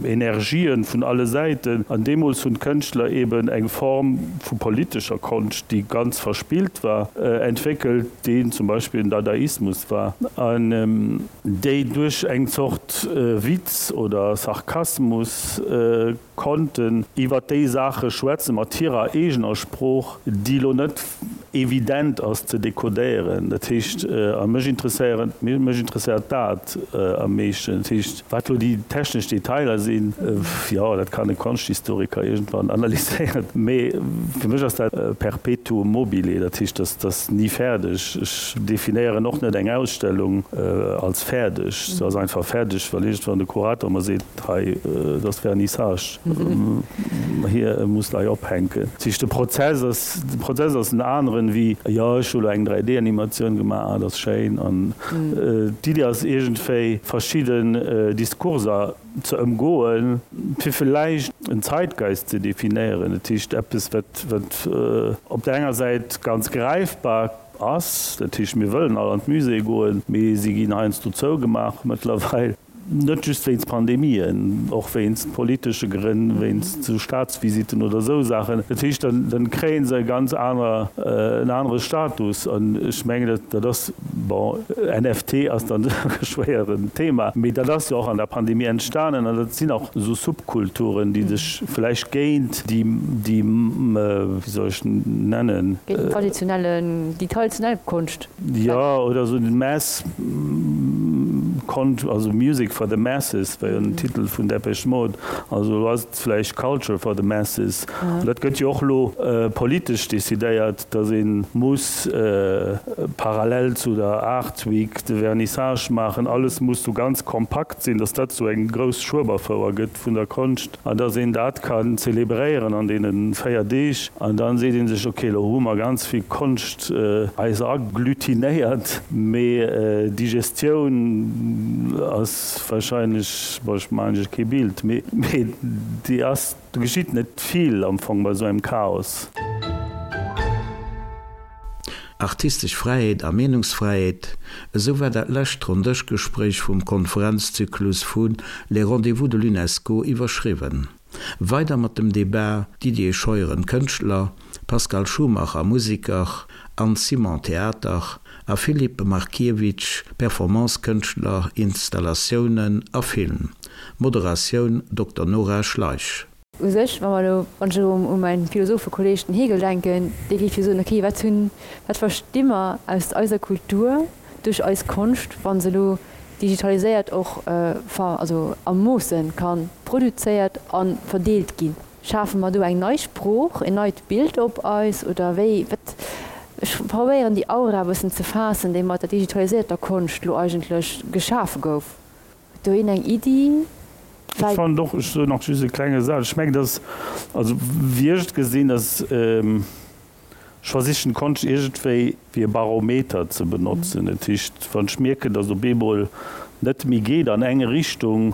Energien vun alle Säiten an deemools hunn d'Kënschtler eeben eng Form vu politescher Konscht, déi ganz verspillt war, entwéckelt, déi zum Beispill den Dadaismus war an. Déi duerch eng Zort Witz oder Sarkasmus konnten iwwer déi Saache schwätzen, mat hirer eegener Sprooch, déi elo net evident ass ze dekodéieren. Dat heescht, a mech interesséieren, mech interesséiert dat am meeschten. Dat heescht, wat elo déi technesch Detailer sinn, jo, dat kann e Konschthistoriker iergendwann analyséieren, mee fir mech ass dat perpetuum mobile, dat heescht, dat ass ni fäerdeg. Ech definéieren och net eng Ausstellung als fäerdeg. Se ass einfach fäerdeg, well iergendwann de Kurator mer seet, hei, et ass Vernissage, hie muss der hei ophänken. Dat heescht, de Prozess ass, de Prozess ass en aneren wéi, jo, ech hu lo eng 3D-Animatioun gemaach, dat ass schéin. An d'Iddi ass iergendwéi verschidden Diskurser ze ëmgoen, fir villäicht en Zeitgeist ze definéieren, dat heescht eppes, wat, wat op der enger Säit ganz gräifbar ass, dat heescht mir wëllen all an d'Muséeë goen, mee si ginn heiansdo zougemaach mëttlerweil. Net just wéinst Pandemien, och wéinst politesche Grënn, wéinst sou Staatsvisitten oder sou Saachen. Dat heescht, dann, dann kréie se e ganz aner, en anere Status. An ech mengen, dat, dat ass, bon, NFT ass dann e schwéieren Thema, mee dat ass jo och an der Pandemie entstanen an dat sinn och sou Subkulturen, déi sech vläicht géint déi, déi, wéi soll ech nennen? Géint den traditionellen, déi traditionell Konscht. Jo, oder esou den Mass Con, also Music for the Masses war jo den Titel vun Depeche Mode, also elo ass et vläicht Culture for the Masses. An dat gëtt jo och elo politesch decidéiert, datt ee muss parallel zu der Art Week de Vernissage maachen, alles muss sou ganz kompakt sinn, datt dat sou eng grouss Schueberfouer gëtt vun der Konscht. An dass een dat kann zelebréieren an deene 4 Deeg. An dann seet ee sech, ok, elo hu mer ganz vill Konscht eis agglutinéiert, mee d'Digestioun ass wahrscheinlech, bon, ech maachen iech kee Bild, mee déi ass, do geschitt net vill am Fong bei esou engem Chaos. Artistesch Fräiheet a Meenungsfräiheet, esou war dat lescht Ronndëschgespréich vum Konferenzzyklus vu Les Rendez-vous de l'UNESCO iwwerschriwwen. Weider mat dem Debat, Didier Scheuren, Kënschtler, Pascal Schumacher, Museker, Anne Simon, Theater, a Filip Markiewicz, Performance-Kënschtler, Installatiounen a Film. Moderatioun, Dokter Nora Schleich. U sech, wa mer elo, wann ech elo u mäin Philosophekolleg, den Hegel, denken, dee géif jo soen, okay, wat hunn, wat versti mer aus eiser Kultur duerch eis Konscht, wa se elo digitaliséiert och ver, also a Moosse ka produzéiert a verdeelt ginn? Schafe mer do eng nei Sprooch, en neit Bild op eis oder wéi? Wat, ech probéieren déi Aura e bëssen ze faassen, déi mat der digitalisierter Konscht elo eigentlech geschafe gouf. Huet do een eng Iddi? Ech fannen och, ech soen nach just e klenge Saz, ech mengen, dass, also wéi ech et gesinn, dass ech versichen d'Konscht iergendwéi wéi e Barometer ze benotzen. Dat heescht, wann ech mierken, dass op eemol net méi geet an eng Richtung,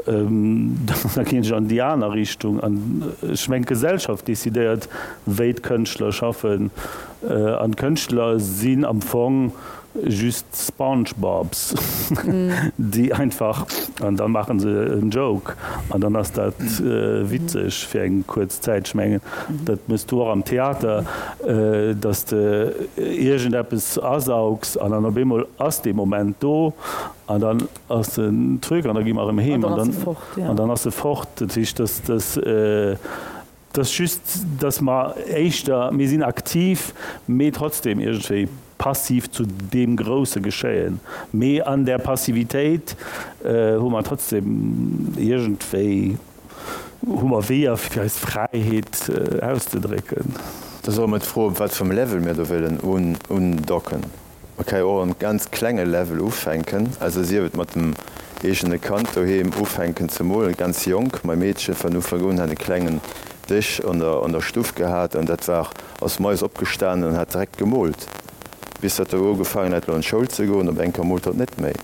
da ginn ech an déi aner Richtung. An ech mengen, d'Gesellschaft decidéiert, wéi d'Kënschtler schaffen. An d'Kënschtler sinn am Fong Just Spongebobs, déi einfach, an da maache se en Joke an dann ass dat witzeg fir eng kuerz Zäit. Ech mengen, dat méchs du och am Theater, datt s de iergendeppes asaugs an dann op eemol ass dee Moment do an dann ass den Truc an da gi mer erëm heem an dann ass e fort. Dat heescht, datt dat. Et ass just, dass mer éischter, mir sinn aktiv, mee trotzdem iergendwéi passiv zu deem grousse Geschéien. Mee an där Passivitéit hu mer trotzdem iergendwéi, hu mer Weeër, fir eis Fräiheet auszedrécken. Da solle mer d'Fro, op wat fir engem Level mir do wëllen undocken. Man ka jo och am ganz klenge Level ufänken, also sief et mat dem eegene Kand doheem ufänken ze molen, ganz jonk. Mei Meedche van Ufank un hat e klengen Dësch an der an der Stuff gehat an dat war, ass moies opgestanen an hat direkt gemoolt, bis datt e ugefaangen hat lo an d'Schoul ze goen, op eng Kéier moolt hatt net méi.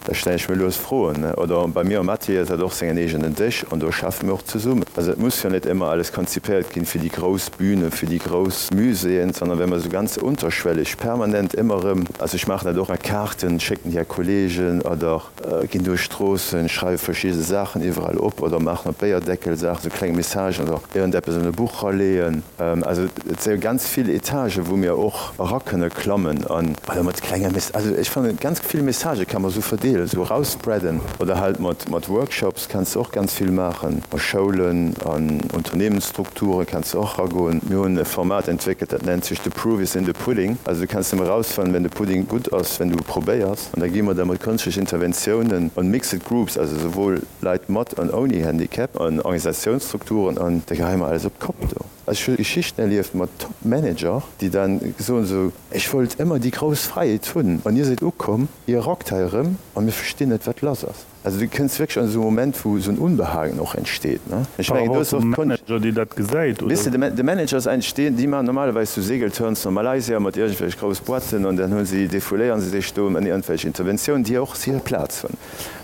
Da stellen ech mir lues Froen. Oder bei mir am Atelier ass hat och sengen eegenen Dësch an do schaffe mir och zesummen. Also et muss jo net ëmmer alles konzipéiert ginn fir déi grouss Bühne, fir déi grouss Muséeën, sondern wenn mer esou ganz unterschwellig permanent ëmmer erëm, also ech maachen dat och mat Kaarten, schécken déi a Kollegen oder ginn duerch d'Stroossen, schreiwe verschidde Saachen iwwerall op oder maachen op Béierdeckel Saachen, esou kleng Messagen oder iergendeppes an e Buch raleeën. Also et si ganz vill Etagen, wou mir och era kënne klammen an oder mat klenge Mess, also ech fannen ganz vill Messagë kann mer esou verdeelen, esou erausspreaden oder halt mat mat Workshops kanns de och ganz vill maachen, a Schoulen, an Unternehmensstrukture kanns de och eragoen. Mir hunn e Format entwéckelt, dat nennt sech The proof is in the pudding, also du kanns nëmme erausfannen, wenn de Pudding gutt ass, wenn du e probéiers an da gi mer da mat kënschtlech Interventiounen an mixed groups, also souwuel Leit mat an ouni Handicap, an Organisatiounsstrukturen an da geheie mer alles op d'Kopp do. Ech hu Geschichten erlieft mat Top Manager, déi dann soen esou, ech wollt ëmmer déi grouss Fräiheet hunn an dir sidd ukomm, dir rockt hei erëm a mir verstinn net wat lass ass. Also du kënns wierklech an esou e Moment, wou esou en Unbehagen och entsteet, ne. Ech mengen do ass och d'Konscht. Manager, dee dat gesäit, oder? Weess de, de Manager ass eigentlech deen, déi maachen normalerweis sou Segelturns no Malaysia mat iergendwelch grouss Boîten an dann hu si, defouléieren se sech do an iergendwelch Interventiounen, déi och hir Plaz hunn.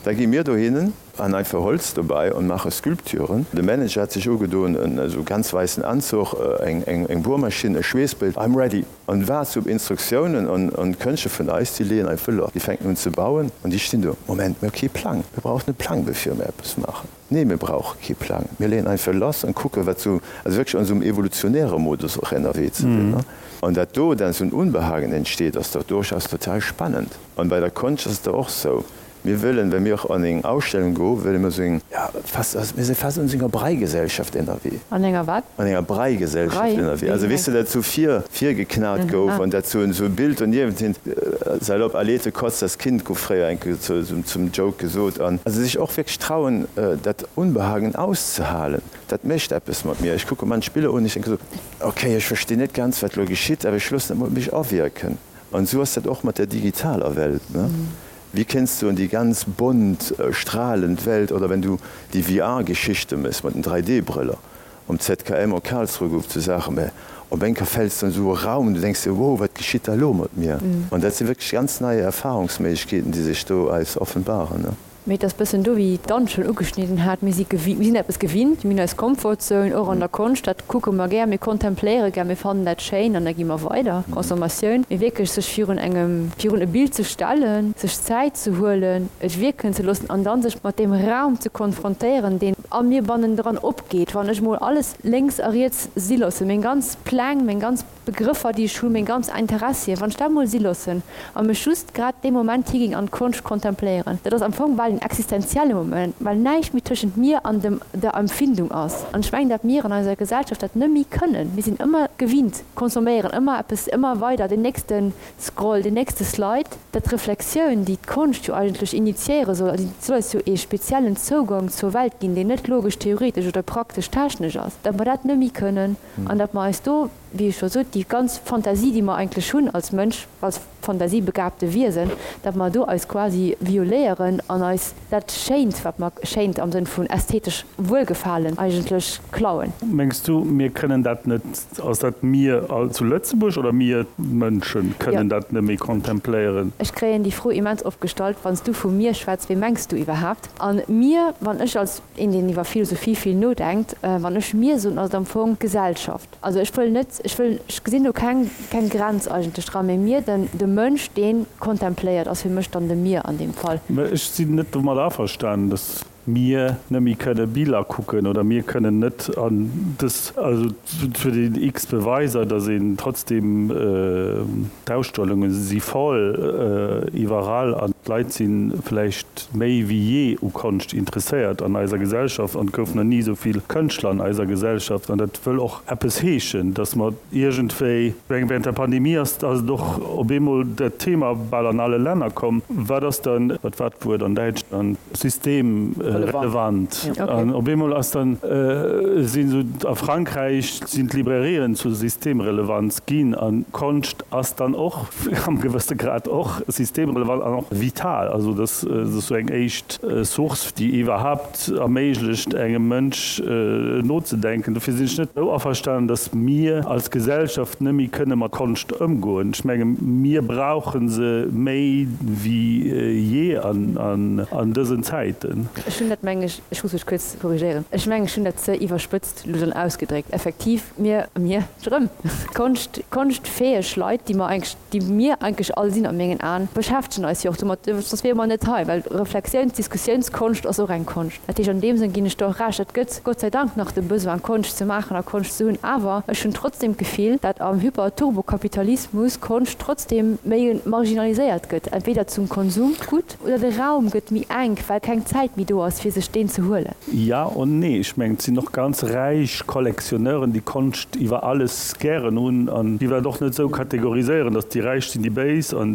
Da gi mir dohinnen. An einfach Holz dobei an maache Sculpturen. De Manager hat sech ugedoen, en esou ganz weissen Anzuch, eng Buermaschinn, e Schweessbild, I'm ready! An waart op Instruktiounen. An d'Kënschtler vun eis, déi leeën einfach lass. Déi fänken un ze bauen an déi stinn do, Moment, mir hu kee Plang. Mir brauchen e Plang bevir mir eppes maachen. Nee, mir brauche kee Plang. Mir leeën einfach lass an kucken, wat sou, also wierklech an esou engem evolutionäre Modus och ënnerwee ze sinn. An dat do dann esou en Unbehagen entsteet, ass dach durchaus total spannend. An bei der Konscht ass et da och sou, Mir wëllen, well mir och an eng Ausstellung goen, wëlle mir esou eng, ja, fast, also mir si fast an esou enger Breigesellschaft ënnerwee. An enger wat? An enger Breigesellschaft ënnerwee. Also weess de, dat esou vir, virgeknat gouf an dat esou e Bild doniewent hin, salopp, Alete kotzt das Kind gouf fréier eng Kéier zum Joke gesot. An also sech och wierklech trauen, dat Unbehagen auszehalen, dat mécht eppes mat mir. Ech kucke manch Biller un, ech denke sou, okay, ech verstinn net ganz, wat elo geschitt, awer ech loossen dat mol op mech awierken. An esou ass dat och mat der digitaler Welt, ne? Wéi kéints du an déi ganz bont, stralend Welt, oder wenn du déi VR-Geschichte méchs mat den 3D-Brëller, Um ZKM a Karlsruhe gouf et sou Saachen, mä op eng Kéier fäls de an esou e Raum, du denks dir, wow, wat geschitt da elo mat mir? An dat si wierklech ganz nei Erfahrungsméiglechkeeten, déi sech do eis offenbaren. Mee et ass bëssen do, wéi d'Anne schonn ugeschnidden hat, mir si gewi, mir sinn eppes gewinnt, mir hunn eis Comfortzone, och an der Konscht, dat kucke mer gär, mir kontempléiere gär, mir fannen dat schéin an da gi mer weider, Consommatioun. Mee wierklech sech virun engem, virun e Bild ze stellen, sech Zäit ze huelen, et wierken ze loossen an dann sech mat deem Raum ze konfrontéieren, deen a mir bannendran opgeet, wann ech mol alles lénks a riets si loossen, meng ganz Pläng, meng ganz Begrëffer, déi ech hunn, meng ganz Interessien, wann ech dat mol si loossen a mech just grad dee Moment higinn an d'Konscht kontempléieren, dat ass am Fong bal en existenzielle Moment, well näischt méi tëschent mir an dem, der Empfindung ass. An ech mengen, dat mir an eiser Gesellschaft dat net méi kënnen. Mir sinn ëmmer gewinnt, consomméieren ëmmer eppes, ëmmer weider, den nächsten Scroll, den nächste Slide. Dat d'Reflexioun, déi d'Konscht jo eigentlech initiéiere soll, also déi soll eis jo ee speziellen Zougang zur Welt ginn, deen net logesch-theoretesch oder praktesch-technesch ass, datt mer dat net méi kënnen an datt mer eis do, wéi ech scho sot, déi ganz Fantasie, déi mer eigentlech hunn als Mënsch, als fantasiebegaabte Wiesen, datt mer do eis quasi violéieren an eis dat Schéint, wat mer, schéint am Sënn vun ästhetesch Wuelgefalen, eigentlech klauen. Mengs du, mir kënnen dat net Ass dat mir all zu Lëtzebuerg oder mir Mënschen kënnen dat net méi kontempléieren? Ech kréien déi Fro immens oft gestallt, Wann s du vu mir schwätz, wee mengs du iwwerhaapt? An mir, wann ech als een, deen iwwer Philosophie vill nodenkt, wann ech mir soen, ass et am Fong d'Gesellschaft. Also ech wëll net, ech wëll, ech gesinn do keng, keng Grenz eigentlech dran, mee mir, den, de Mënsch, dee kontempléiert, ass fir mech dann de mir an deem Fall. Mä ech sinn net domat averstanen, dass mir net méi kënne Biller kucken oder mir kënnen net an dës, also et huet een x Beweiser, datt een trotzdem, d'Ausstellunge si voll iwwerall an d'Leit si vläicht méi wéi jee u Konscht interesséiert an eiser Gesellschaft an et gouf nach ni esou vill Kënschtler an eiser Gesellschaft an dat wëll och eppes heeschen, datt mer iergendwéi, während der Pandemie ass et och op eemol dat Thema bal an alle Länner komm, wat ass dann, wat war d'Wuert an Däitschland? Systemrelevant. An op eemol ass dann, sinn esou, a Frankräich sinn d'Librairien zu Systemrelevanz ginn an Konscht ass dann och am gewësse Grad och systemrelevant an och vital. Also dat ass esou eng éischt Source, déi iwwerhaapt erméiglecht engem Mënsch nozedenken. Dofir sinn ech net esou averstanen, datt mir als Gesellschaft net méi kënne mat Konscht ëmgoen. Ech menge mir brauche se méi wéi jee an dësen Zäiten. Ech hunn dat, meng ech, ech muss mech kuerz korrigéieren, ech mengen, ech hunn dat ze iwwerspëtzt elo dann ausgedréckt. Effektiv, mir, mir, erëm, Konscht, konschtfäeg Leit, déi mer eigentlech, déi mir eigentlech all sinn a mengen Aen, beschäftegen eis jo och domat, soss wiere mer net hei, well Reflexiouns-, Diskussiounskonscht ass och eng Konscht. Dat heescht, an deem Sënn ginn ech der och Recht, et gëtt Gott sei Dank nach de Besoin, Konscht ze maachen a Konscht ze hunn, awer ech hunn trotzdem d'Gefill, dat am Hyper-Turbo-Kapitalismus Konscht trotzdem méi marginaliséiert gëtt, entweder zum Konsumgut oder de Raum gëtt méi enk, well keng Zäit méi do ass, fir sech deen ze huelen. Ja und nee. Ech mengen, et sinn och ganz räich Collectionneuren, déi Konscht iwwer alles gären hunn an déi dat och net esou kategoriséieren, datt déi Räich sinn déi Béis an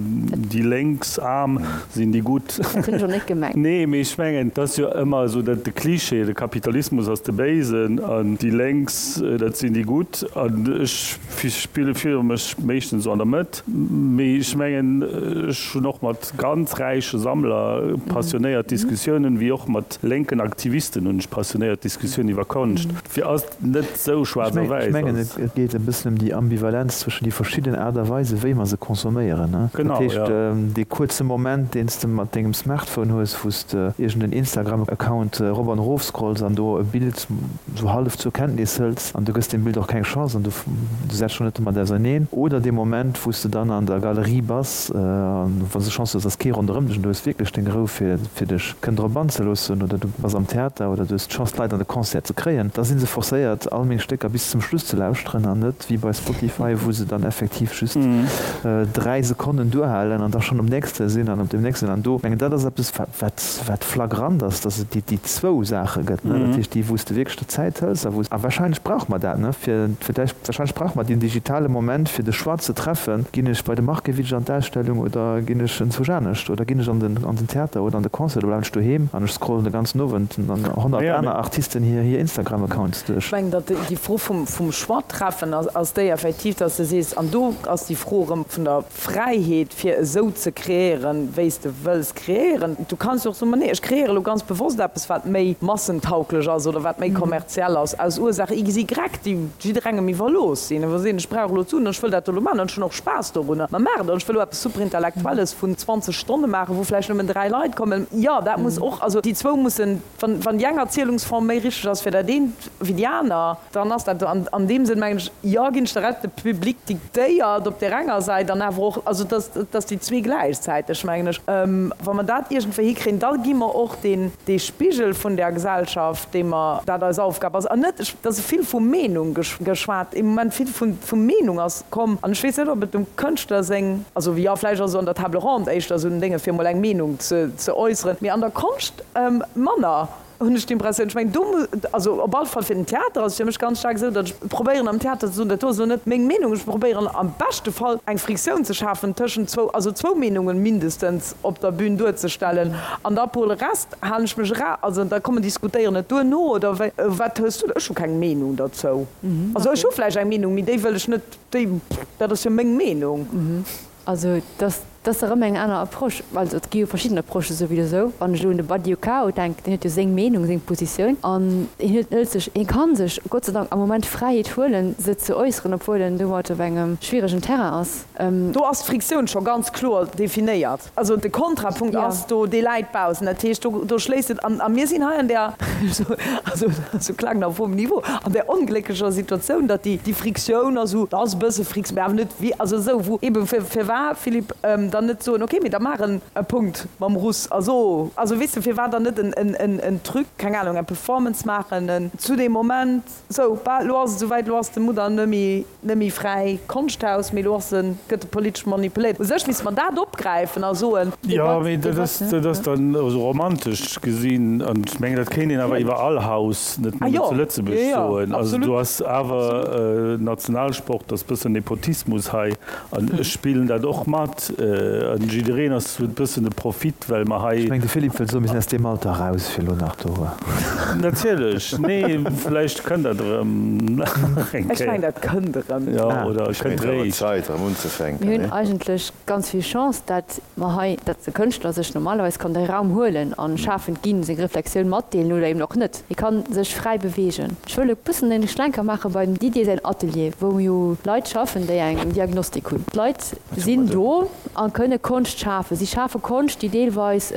déi Lénks, Aarm sinn déi Gutt. Dat hunn ech och net gemengt. Nee, mee ech mengen, et ass jo ëmmer esou dat de Cliché, de Kapitalismus ass de Béisen an déi Lénks, dat sinn déi Gutt. An ech spille fille mech meeschtens esou an der Mëtt. Mee ech mengen, ech hunn och mat ganz räiche Sammler passionéiert Diskussiounen, wéi och mat lénken Aktivisten hunn ech passionéiert Diskussiounen iwwer Konscht. Fir ass et net esou schwaarz a Ech wäiss mengen, ass. et geet e bëssen ëm déi Ambivalenz zwëschen déi verschidden Aart a Weisen, wéi mer se consomméieren. Dat heescht, dee kuerze Moment. Moment, deen s de mat dengem Smartphone hues, wou s de iergend en Instagram-Account erop an erof scrolls an do e Bild sou hallef zur Kenntnis hëls an du gëss deem Bild och keng Chance an du setz dech och net domat auserneen, oder dee Moment, wou s de dann an der Galerie bass an wann s de Chance hues, ass kee ronderëm dech an du hues wierklech deng Rou fir fir dech kënnen drop anzeloossen, oder du bass am Theater oder du hues d'Chance d'Leit an de Concert ze kréien, da si se forcéiert all meng Stécker bis zum Schluss ze lauschteren an net wéi bei Spotify, wou se dann effektiv just 3 Sekonnen duerhalen an da schonn um nächste sinn an op deem nächsten an do mengen dat ass eppes wat wat flagrant ass, dass et déi déi zwou Saache gëtt, ne, dat heescht déi wou s de wierklech der Zäit hëls a wou s, a wahrscheinlech brauche mer dat, ne, fir fir d'lech wahrscheinlech brauche mer deen digitale Moment fir de Choix ze treffen, ginn ech bei de Markiewicz an d'Ausstellung oder ginn ech enzwousch anescht oder ginn ech an den an den Theater oder an de Concert oder bleiwen ech doheem an ech scrollen de ganzen Owend an 100 aner Artisten hir hir Instagram-Accounts duerch. Ech mengen, datt déi Fro vum vum Choix treffen ass ass déi effektiv, datt s de sees, an do ass déi Fro erëm vun der Fräiheet fir esou ze kreéieren, wéi s de wëlls kreéieren. Du kanns jo och soen, ma nee, ech kreéiere lo ganz bewosst eppes, wat méi massentauglech ass oder wat méi kommerziell ass, aus Ursaach XY, déi jidderengem iwwerlooss sinn. Wa se soen, ech brauch elo d'Suen an ech wëll dat do elo maachen an ech hunn och Spaass dorunner, ma maach et. An ech wëll elo eppes Superintellektuelles vun 20 Stonne maachen, wou vläicht nëmmen 3 Leit kommen. Jo, dat muss och, also déi zwou mussen, wann, wann déi eng Erzielungsform méi richteg ass fir dat eent wéi déi aner, dann ass dat an, an deem Sënn mengen ech, jo, ginn ech der Recht, de Public diktéiert op där enger Säit an awer och, also dass, dass déi zwee gläichzäiteg, mengen ech, wa mer dat iergendwéi hikréien, da gi mer och deen, dee Spigel vun där Gesellschaft, dee mer, dat eis Aufgab ass. An net, et ass vill vu Meenung geschwat, im Moment vill vu, vu Meenung ass komm an ech weess net, ob et dem Kënschtler seng, also jo, vläicht ass et an der Table ronde éischter esou en Dénge fir emol eng Meenung ze, ze äusseren, mee an der Konscht manner. Hunn ech d'Impressioun. Ech mengen, do muss, also op alle Fall fir den Theater ass et fir mech ganz staark esou, datt ech probéieren am Theater ze soen, dat do ass elo net meng Meenung, ech probéieren am beschte Fall eng Friktioun ze schafen tëschent zwou, also zwou Meenungen mindestens op der Bühn duerzestellen an da pour le reste halen ech mech era, also da kommen diskutéieren et duerno oder wéi. Wat hues du? Ech hu keng Meenung derzou. Also ech hu vläicht eng Meenung, mee déi wëll ech net, déi, dat ass jo meng Meenung. Also dass dat ass erëm eng aner Approche. Also et gi jo verschidden Approchen souwisou. Wann ech elo un de Badiou denken, deen huet jo seng Meenung, seng Positioun an hien huet hëlt sech, hie ka sech Gott sei Dank am Moment d'Fräiheet huelen, se ze äusseren, obwuel en domat op engem schwieregen Terrain ass. Do ass d'Friktioun scho ganz kloer definéiert. Also de Kontrapunkt ass do, dee läit baussen. Dat heescht, do, do schléisst et an. A mir sinn hei an där, also esou klagen auf hohem Niveau, an där onglécklecher Situatioun, datt déi, déi Friktioun ass esou, da ass e bësse Friks, mä awer net wéi, also esou, wou eebe fir, firwat, Philippe, dann net soen, okay, mee da maach en e Punkt mam Russ a so, also weess de, firwat dann net en, en, en, en Truc, keng Ahnung, eng Performance maachen, en zu deem Moment, sou, bah, elo ass et esouwäit, elo ass de Mudder nëmme. Net méi fräi Konschthaus, mee elo ass en, gëtt e politesch manipuléiert. U sech misste mer dat opgräifen a soen. Jo, mee dat ass, dat ass dann esou romantesch gesinn. An ech mengen, dat kéint een awer iwwer all Haus, net nëmmen zu Lëtzebuerg soen. Also do ass awer Nationalsport, ass bëssen Nepotismus hei. An ech spillen dat och mat. An jiddereen ass, huet bëssen e Profit, well mer hei. Ech mengen, de Philippe wëllt soen, mir sinn aus deem Alter eraus, fir elo nach do. Natierlech, nee, vläicht kënnt dat erëm nach eng Kéier. Ech mengen, dat kënnt erëm. Jo, oder et kënnt réischt. Zäit erëm unzefänken. Mir hunn eigentlech ganz vill Chance, dat mer hei, dat de Kënschtler sech normalerweis kann de Raum huelen a schafend ginn, seng Reflexioun matdeelen oder eben och net. Hie ka sech fräi beweegen. Ech wëll e bëssen en Schlenker maache beim Didier säin Atelier, wou jo Leit schaffen, déi eng Diagnostik hunn. D'Leit sinn do a kënne Konscht schafen. Si schafe Konscht, déi deelweis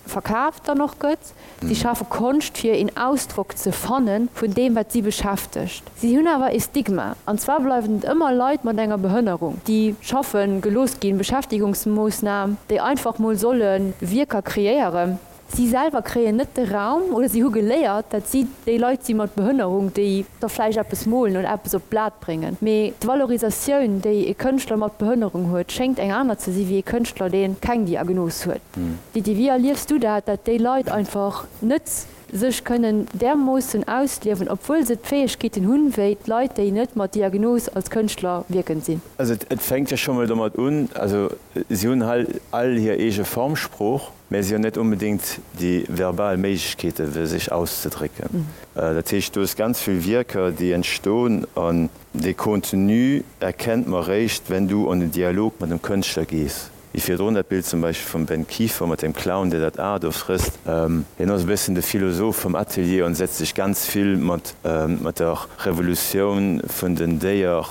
verkaaft dann och gëtt. Si schafe Konscht, fir een Ausdrock ze fanne vun deem, wat si beschäftegt. Si hunn awer ee Stigma, an zwar bleiwen et ëmmer Leit mat enger Behënnerung, déi schaffe gelooss ginn, Beschäftigungsmoossnam, déi einfach mol solle Wierker kreéieren. Si selwer kréien net de Raum oder si hu geléiert, dat si déi Leit si mat Behënnerung, déi da vläicht eppes molen oder eppes op d'Blat bréngen. Mee d'Valorisatioun, déi e Kënschtler mat Behënnerung huet, schéngt eng aner ze si wéi e Kënschtler, dee keng Diagnos huet. Didi, wéi erliefs du dat, dat déi Leit einfach net sech kënnen därmoossen ausliewen, obwuel se d'Fäegkeeten hunn, wéi d'Leit, déi net mat Diagnos als Kënschtler wierkend sinn? Also et fänkt jo scho mol domat un, also si hunn hei all hir eege Formsprooch, mä si hunn net onbedéngt déi verbal Méiglechkeete fir sech auszedrécken. Dat heescht, do ass ganz vill Wierker, déi entstoen an dee Contenu erkennt mer réischt, wenn du an den Dialog mat dem Kënschtler gees. Wéi virdrun dat Bild zum Beispill vum Ben Kieffer mat dem Clown, dee dat A do frësst. Hien ass e bëssen de Philosoph vum Atelier an setzt sech ganz vill mat mat der Revolutioun vun den Déier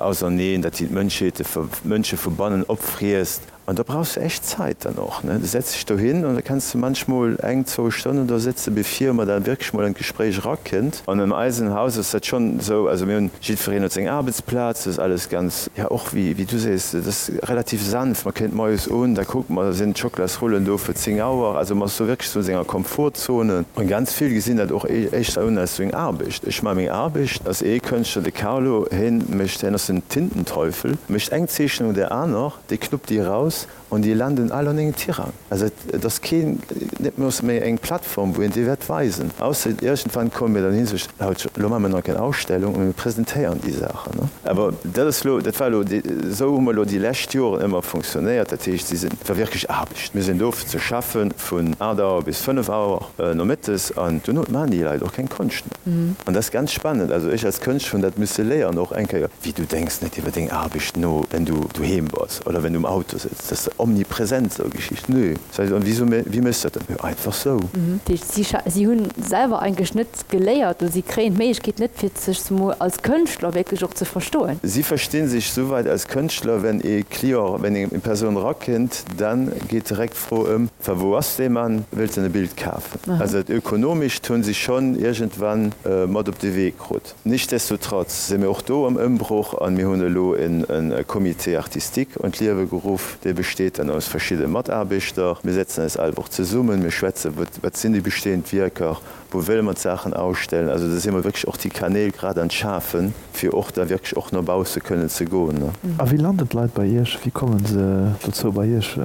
auserneen, dat si d'Mënschheete, d'Mënsche vu bannen opfriesst. An da brauchs du echt Zait dann och, ne. Du setz dech dohin an da kenns du manchmol eng, zwou Stonnen do sëtze bevir mer da wierklech mol an d'Gespréich erakënnt. An an eisem Haus ass dat schonn esou, also mir hunn, jiddwereen huet seng Aarbechtsplaz, dat ass alles ganz, ja och wéi wéi du sees, dat ass relativ sanft. Mer kéint moies un, da kuckt mer, da sinn d'Schokolasrullen do fir 10 Auer. Also mer ass do wierklech esou an senger Komfortzone. An ganz vill gesinn dat och éischter un als esou eng Aarbecht. Ech maache meng Aarbecht, ass ee Kënschtler, de Carlo, hien mécht, hien ass den Tintenteufel, mécht eng Zeechnung no där aner. Déi knuppt déi eraus an déi landen all an engem Tirang. Also et ass keen, net méi eng Plattform, wou een déi wäert weisen. Ausser iergendwann komme mir dann hin, sech, Haut, elo maache mir nach eng Ausstellung a mir presentéieren déi Saachen. Awer dat ass elo, dat war elo, esou hu mer elo déi lescht Joren ëmmer funktionéiert. Dat heescht, si sinn, et war wierklech Aarbecht. Mir sinn do fir ze schaffen vun 8 Auer bis 5 Auer nomëttes an duerno maachen déi Leit och keng Konscht méi. An dat ass ganz spannend. Also ech als Kënschtler hunn dat misse léieren och eng Kéier. Wéi du denks net iwwer deng Aarbecht no, wenn du doheem bass oder wenn du um Auto sëtz. Dat ass omnipresent esou Geschichten. Nö, sag ech, an wieso, wéi méchs du dat dann? Jo, einfach sou. Dat heescht, si si hunn selwer eigentlech net geléiert oder si kréien d'Méiglechkeet net, fir sech zemol als Kënschtler wierklech och ze verstoen. Si verstinn sech souwäit als Kënschtler, wenn ee Client, wenn eng Persoun erakënnt, dann geet direkt d'Fro ëm, Wa wou ass dee Mann, wëllt en e Bild kafen? Also dat Ökonomescht hunn si schonn iergendwann mat op de Wee krut. Nichtsdestotrotz si mir och do am Ëmbroch an mir hunn elo e Comité artistique an d'Liewe geruff. Dee besteet dann aus verschidde Mataarbechter. Mir setzen eis all Woch zesummen, mir schwätzen, wat sinn déi bestehend Wierker, wou wëlle mer d'Saachen ausstellen. Also do si mer wierklech och déi Kanäl grad an d'Schafen, fir och da wierklech och no bausse kënnen ze goen. A wéi landen d'Leit bei Iech? Wéi komme se dozou bei Iech?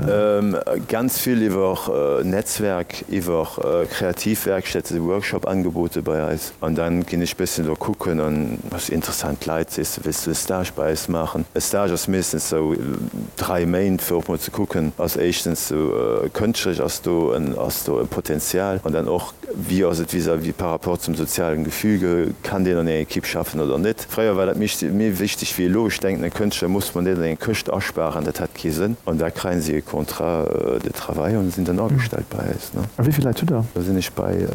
Ganz vill iwwer Netzwerk, iwwer Kreativwerkstätte, Workshop-Angebote bei eis. An dann ginn ech bëssen do kucken an ass interessant Leit, sees de, wéills du e Stage bei eis maachen? E Stage ass meeschtens sou 3 Méint fir och mol ze kucken, ass éischtens sou kënschtlech ass do en ass do e Potenzial an dann och wéi ass et vis-à-vis par rapport zum sozialen Gefüge, kann deen an enger Equipe schaffen oder net? Fréier war dat méi méi wichteg wéi elo. Ech denken e Kënschtler muss man net an eng Këscht aspaaren, dat hätt kee Sënn. An da kréien si e Contrat de travail an sinn dann agestellt bei eis, ne? A wéi vill Leit hutt der? Da sinn ech bei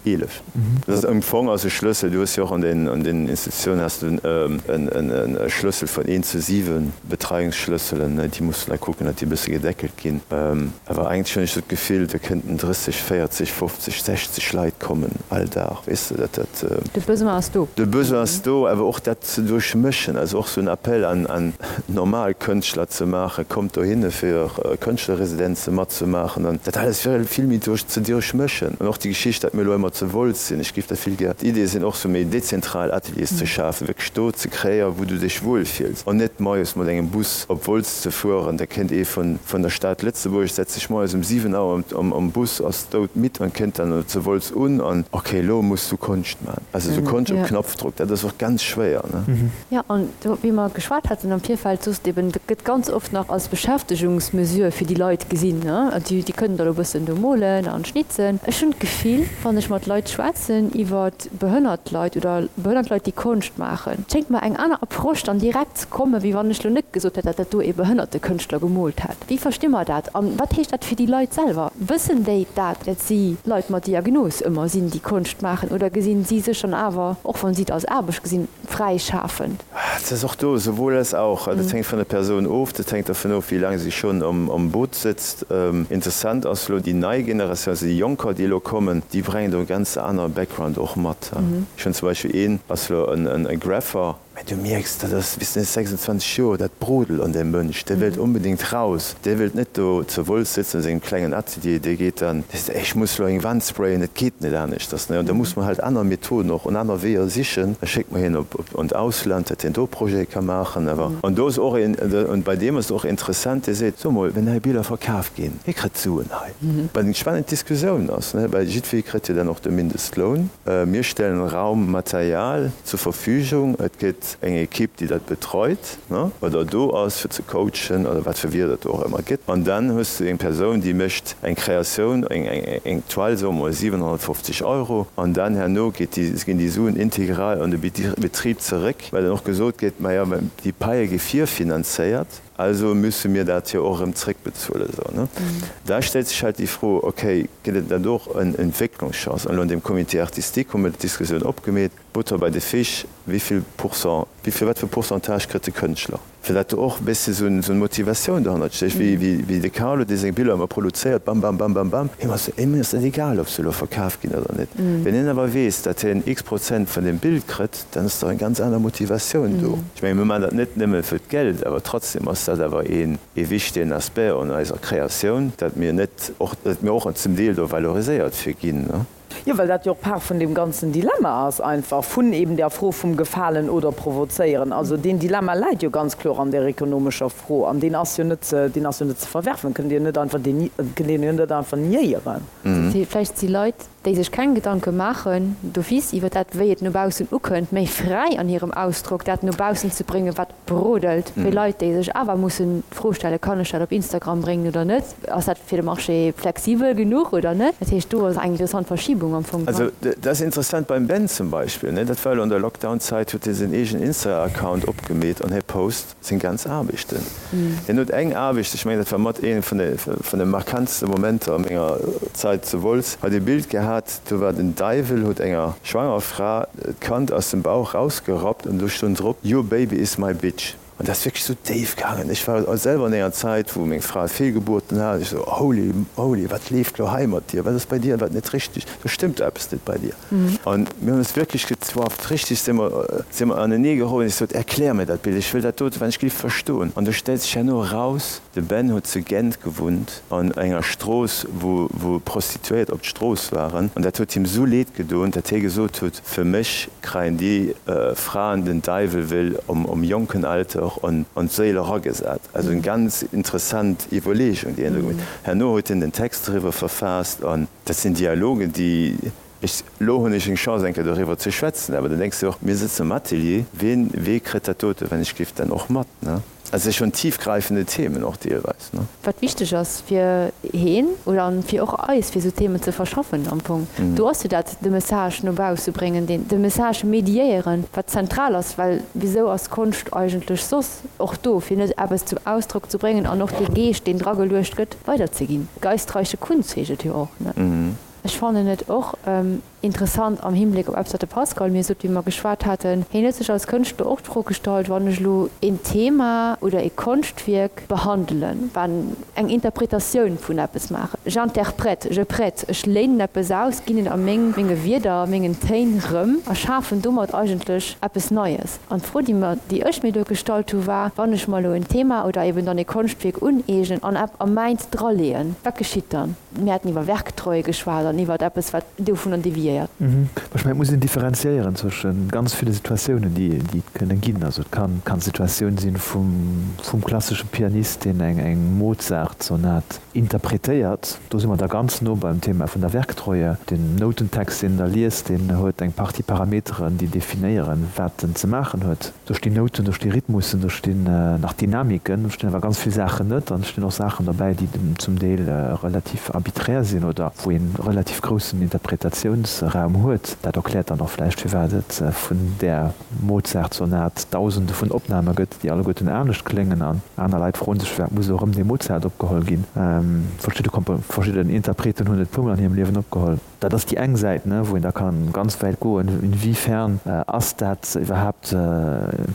11. Dat ass am Fong ass e Schlëssel, du hues jo och an den an den Institutiounen has du en e Schlëssel vun eent zu 7 Betreiungsschlësselen, déi muss du da kucken, datt déi e bësse gedeckelt ginn. Awer eigentlech hunn ech sou d'Gefill, do kënnten 30, 40, 50, 60 Leit kommen all Dag, weess de, dat dat. De Besoin ass do. De Besoin ass do, awer och dat ze duerchmëschen, also och sou en Appel an an normal Kënschtler ze maachen, kommt dohinne fir Kënschtlerresidenze matzemaachen an dat alles vill vill méi duerch ze duerchmëschen. An och déi Geschicht, datt mir elo ëmmer zu Wolz sinn, ech géif dat vill gär, d'Idee sinn och sou méi dezentral Ateliers ze schafen, wierklech do ze kreéieren, wou du dech wuel fills an net moies mat engem Bus op Wolz ze fueren. Da kënnt ee vun vun der Stad Lëtzebuerg, setzt sech moies um 7 Auer am am Bus, ass doudmidd an kënnt dann zu Wolz un an ok, elo muss du Konscht maachen. Also sou Konscht op Knopfdruck, dat ass och ganz schwéier, ne? Jo, an do, wéi mer geschwat haten am Virfeld, soss de eben, dat gëtt ganz oft nach als Beschäftegungsmesure fir déi Leit gesinn, ne? Déi, déi kënnen da lo e bëssen do molen an schnitzen. Ech hunn d'Gefill, wann ech mat Leit schwätzen iwwer behënnert Leit oder behënnert Leit, déi Konscht maachen, et schéngt mer eng aner Approche dann direkt ze kommen, wéi wann ech lo net gesot hätt, datt dat do ee behënnerte Kënschtler gemoolt hätt. Wéi versti mer dat an wat heescht dat fir déi Leit selwer? Wëssen déi dat, dat si Leit mat Diagnos ëmmer sinn, déi Konscht maachen, oder gesinn si sech dann awer, och wann si et als Aarbecht gesinn, fräischafend? Et ass och do sowohl als auch. Dat hänkt vun der Persoun of, dat hänkt dervun of, wéi laang si schonn am Boot sëtzt. Interessant ass elo déi nei Generatioun, also déi Jonker, déi elo kommen, déi brengen do e ganz anere Background och mat. Ech hunn zum Beispill een, ass elo e Graffer, Mä du mierks, dat ass, wéi s de 26 Joer, dat brodelt an deem Mënsch, dee wëllt onbedéngt raus, dee wëllt net do zu Wolz sëtzen a sengem klengen Atelier, dee geet dann, dee seet, ech muss elo eng Wand sprayen, et geet net aneschters. An da muss mer halt aner Methoden och an aner Weeër sichen. Da schéckt mer hien op an d'Ausland, datt hien do Projete ka maachen. Awer, an do ass och een, an bei deem ass et och interessant, dee seet, so mol, wenn hei Biller verkaf ginn, hie kritt Suen hei. Wat eng spannend Diskussioun ass, well jiddweree kritt jo dann och de Mindestloun. Mir stellen Raum, Material zur Verfügung. Et gëtt eng Equipe, déi dat betreut oder do ass, fir ze coachen oder wat fir Wierder et do och ëmmer gëtt. An dann hues du eng Persoun, déi mécht eng Kreatioun, eng Toile, soe mer mol 750 Euro, an dann herno geet déi, ginn déi Suen integral an de Betrib zeréck, well dann och gesot gëtt, majo, déi Paie gi virfinanzéiert. Also müsse mir dat jo och erëm zréckbezuelen. Esou, ne? Da stellt sech halt déi Fro, okay, gëtt et net och en Entwécklungschance? An elo an deem Comité artistique hu mir d'Diskussioun opgemeet, Butter bei de Fisch, wéi vill Pourcent? Wéi vill, wat fir Pourcentage kritt de Kënschtler? Fir dat do och e bëssi esou eng Motivatioun dohannert stécht, wéi wéi de Carlo, dee seng Biller ëmmer produzéiert, bam, bam, bam, bam, bam, him ass him ass dat egal, ob se elo verkaf ginn oder net. Wenn hien awer weess, datt hien x Prozent vun deem Bild kritt, dann ass do eng ganz aner Motivatioun do. Ech menge mir maachen dat net nëmme fir d'Geld, awer trotzdem ass dat awer een ee wichtegen Aspect an eiser Kreatioun, datt mir net och, datt mir och zum Deel do valoriséiert fir ginn. Jo, well dat jo och Part vun deem ganzen Dilemma ass einfach, vun eben där Fro vum Gefalen oder Provozéieren. Also deen Dilemma läit jo ganz kloer an där ekonomescher Fro an deen ass jo net ze, deen ass jo net ze verwerfen, kënnt Dir net einfach deni, kënnt een jo net einfach niéieren. Vläicht si Leit, déi sech keng Gedanke maachen d'office iwwer dat, wéi et no baussen ukënnt, méi fräi an hirem Ausdrock, dat no baussen ze bréngen, wat brodelt, wéi Leit, déi sech awer mussen d'Fro stellen, Kann ech dat op Instagram bréngen oder net? Ass dat fir de Marché flexibel genuch oder net? Dat heescht, do ass eng interessant Verschibung am Fong dran. Also dat ass interessant beim Ben zum Beispill, ne, dat war elo an der Lockdown-Zäit, huet hie säin eegenen Insta-Account opgemeet an hie post seng ganz Aarbechten. Hien huet eng Aarbecht, ech mengen dat war mat ee vun de vun de markantste Momenter a menger Zäit zu Wolz, hat ee Bild gehat, do war den Däiwel, huet enger schwanger Fra d'Kand aus dem Bauch rausgerappt an do stoung drop, Your baby is my bitch. An dat ass wierklech esou déif gaangen. Ech war selwer an enger Zäit, wou meng Fra Feelgebuerten hat, an ech esou, Holy, holy, wat leeft lo hei mat dir? Wat ass bei dir wat net richteg? Do stëmmt eppes net bei dir. An mir hunn eis wierklech gezwafft, richteg si mer, si mer anenee geroden. Ech sot, Erklär mir dat Bild, ech wëll dat dote wann ech géif verstoen. An do stellt sech herno eraus, de Ben huet zu Gent gewunnt, an enger Strooss, wou, wou Prostituéiert op d'Strooss waren. An dat huet him esou leed gedoen, dat hie gesot huet, Fir mech kreien déi Fraen den Deiwel will om om jonken Alter an an d'Séil eragesat. Also eng ganz interessant Iwwerleegung, déi hien do gemaach huet. Herno huet hien den Text doriwwer verfaasst an dat sinn Dialogen, déi ech, elo hunn ech eng Chance eng Kéier doriwwer ze schwätzen, awer dann denks de och, mir sëtzen am Atelier, wien, wee kritt dat dote wenn ech géif dann och mat, ne? Also et si schonn tiefgreifende Themen och deelweis, ne? Wat wichteg ass fir heen oder an fir och eis, fir esou Themen ze verschaffen am Fong. Do ass jo dat, de Message no bausse bréngen, deen, de Message mediéieren, wat zentral ass, well wisou ass Konscht eigentlech soss och do, fir net eppes zum Ausdrock ze bréngen an och dee Geescht, deen drageluecht gëtt, weiderzeginn. Geistreiche Kunst heescht et jo och, ne? Ech fannen et och interessant am Hinbléck op eppes, wat de Pascal mir sot, wéi mer geschwat haten. Hien huet sech als Kënschtler och d'Fro gestallt, Wann ech elo een Thema oder ee Konschtwierk behandelen, wann eng Interpretatioun vun eppes maachen, j'interprète, je prête, ech léinen eppes aus, ginn et a meng, menge Wierder, mengen Téin rëm a schafen domat eigentlech eppes Neies. An d'Fro, déi mer, déi ech mir do gestallt hu war, Wann ech mer elo en Thema oder eben dann ee Konschtwierk uneegnen an a mäins draleeën, wat geschitt dann? Mir haten iwwer Werktreue geschwat an iwwer eppes, wat dovunner deviéiert. Ech mengen, et muss een differenziéieren zwësche ganz ville Situatiounen, déi et kënne ginn. Also et kann d'Situatioun sinn vum klassesche Pianist, deen eng Mozart-Sonat interpretéiert. Do si mer da ganz no beim Thema vun der Werktreue. Den Noutentext, deen en da liest, deen huet eng Partie Parameteren, déi definéieren, wat en ze maachen huet. Do stinn Nouten, do sti Rhythmussen, do stinn nach Dynamiken, do stinn awer ganz vill Saachen net an et stinn och Saachen derbäi, déi zum Deel relativ arbiträr sinn oder wou ee relativ groussen Interpretatiounsraum huet. Dat erkläert dann och vläicht, firwat et vun där Mozart-Sonat Dausende vun Opname gëtt, déi alleguerten anescht kléngen an aner Leit froen sech, firwat muss elo erëm dee Mozart opgeholl ginn. Verschidde Kompo, verschidden Interpreten hunn et puermol an hirem Liewen opgeholl. Dat ass déi eng Säit, wou een da ka ganz wäit goen. Inwiefern ass dat iwwerhaapt,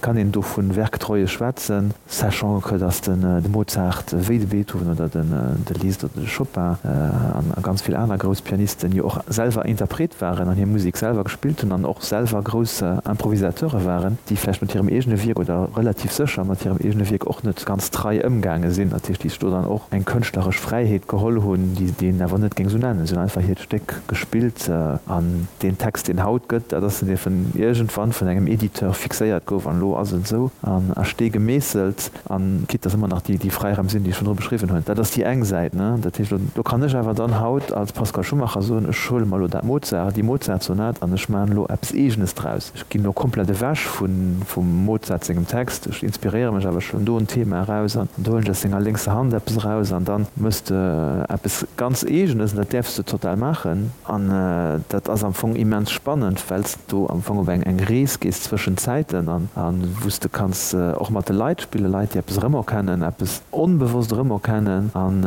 kann een do vu Werktreue schwätzen, sachant que dass de Mozart wéi de Beethoven oder de Liszt oder de Chopin a ganz vill aner grouss Pianisten jo och selwer Interpret waren an hir Musek selwer gespillt hunn an och selwer grouss Improvisateure waren, déi vläicht mat hirem eegene Wierk oder relativ sécher mat hirem eegene Wierk och net ganz trei ëmgaange sinn. Dat heescht, déi sech do dann och eng kënschtleresch Fräiheet geholl hunn, déi een awer net géing esou nennen. Si hunn einfach hiert Stéck gespillt an deen Text, deen haut gëtt, dat ass den, dee vun iergendwann vun engem Editeur fixéiert gouf an elo ass et esou an a Stee gemeesselt. An quitte dass ëmmer nach déi Fräiraim sinn, déi ech virdru beschriwwen hunn. Dat ass déi eng Säit. Dat heescht, do kann ech awer dann haut als Pascal Schumacher soen, ech huele mer elo dat Mozart, déi Mozart-Sonat an ech maachen elo eppes Eegenes draus. Ech ginn elo komplett ewech vum Mozart sengem Text, ech inspiréiere mech awer, ech huelen do en Thema eraus an do huelen ech aus senger lénkser Hand eppes eraus an dann méchs de eppes ganz Eegenes an dat däerfs de total maachen. An dat ass am Fong immens spannend, well s du am Fong op eng eng Rees gees zwëschen Zäiten an wou s de kanns och mat de Leit spillen, Leit déi eppes erëmerkennen, eppes onbewosst erëmerkennen. An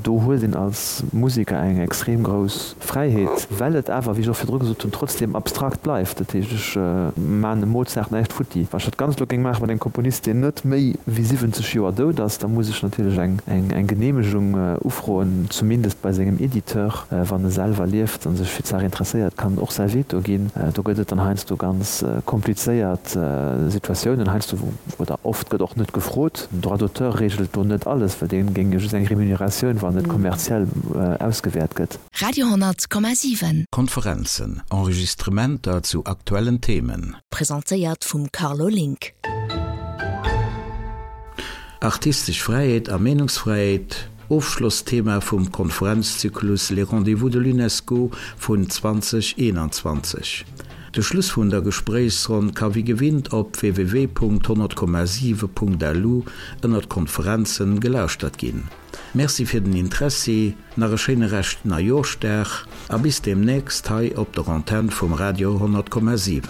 do huet een als Museker eng extrem grouss Fräiheet, well et awer, wéi ech och virdru gesot hunn, trotzdem abstrakt bleift. Dat heescht, ech maachen dem Mozart näischt futti. Wann ech dat Ganzt elo géing maache mat engem Komponist, deen net méi wéi 70 Joer dout ass, da muss ech natierlech eng eng Geneemegung ufroen, zumindest bei sengem Editeur. Wann e selwer lieft a sech fir d'Saach interesséiert, kann en och säi Veto ginn. Do gëtt et dann heiansdo ganz komplizéiert Situatiounen, heiansdo oder oft gëtt och net gefrot. Den Droit d'auteur reegelt do net alles, well dee géing jo just eng Remuneratioun, wann et kommerziell ausgewäert gëtt. Radio 10,7. Konferenzen, Enregistrementer zu aktuellen Themen. Presentéiert vum Carlo Link. Artistesch Fräiheet a Meenungsfräiheet, Ofschlossthema vum Konferenzzyklus Les Rendez-vous de l'UNESCO vun 2021. De Schluss vun der Gespréichsronn ka wéi gewinnt op www.100,7.lu ënnert Konferenzen gelauschtert ginn. Merci fir den Interessi, nach e schéine Rescht Neijooschdag a bis deemnächst hei op der Antenn vum Radio 100,7.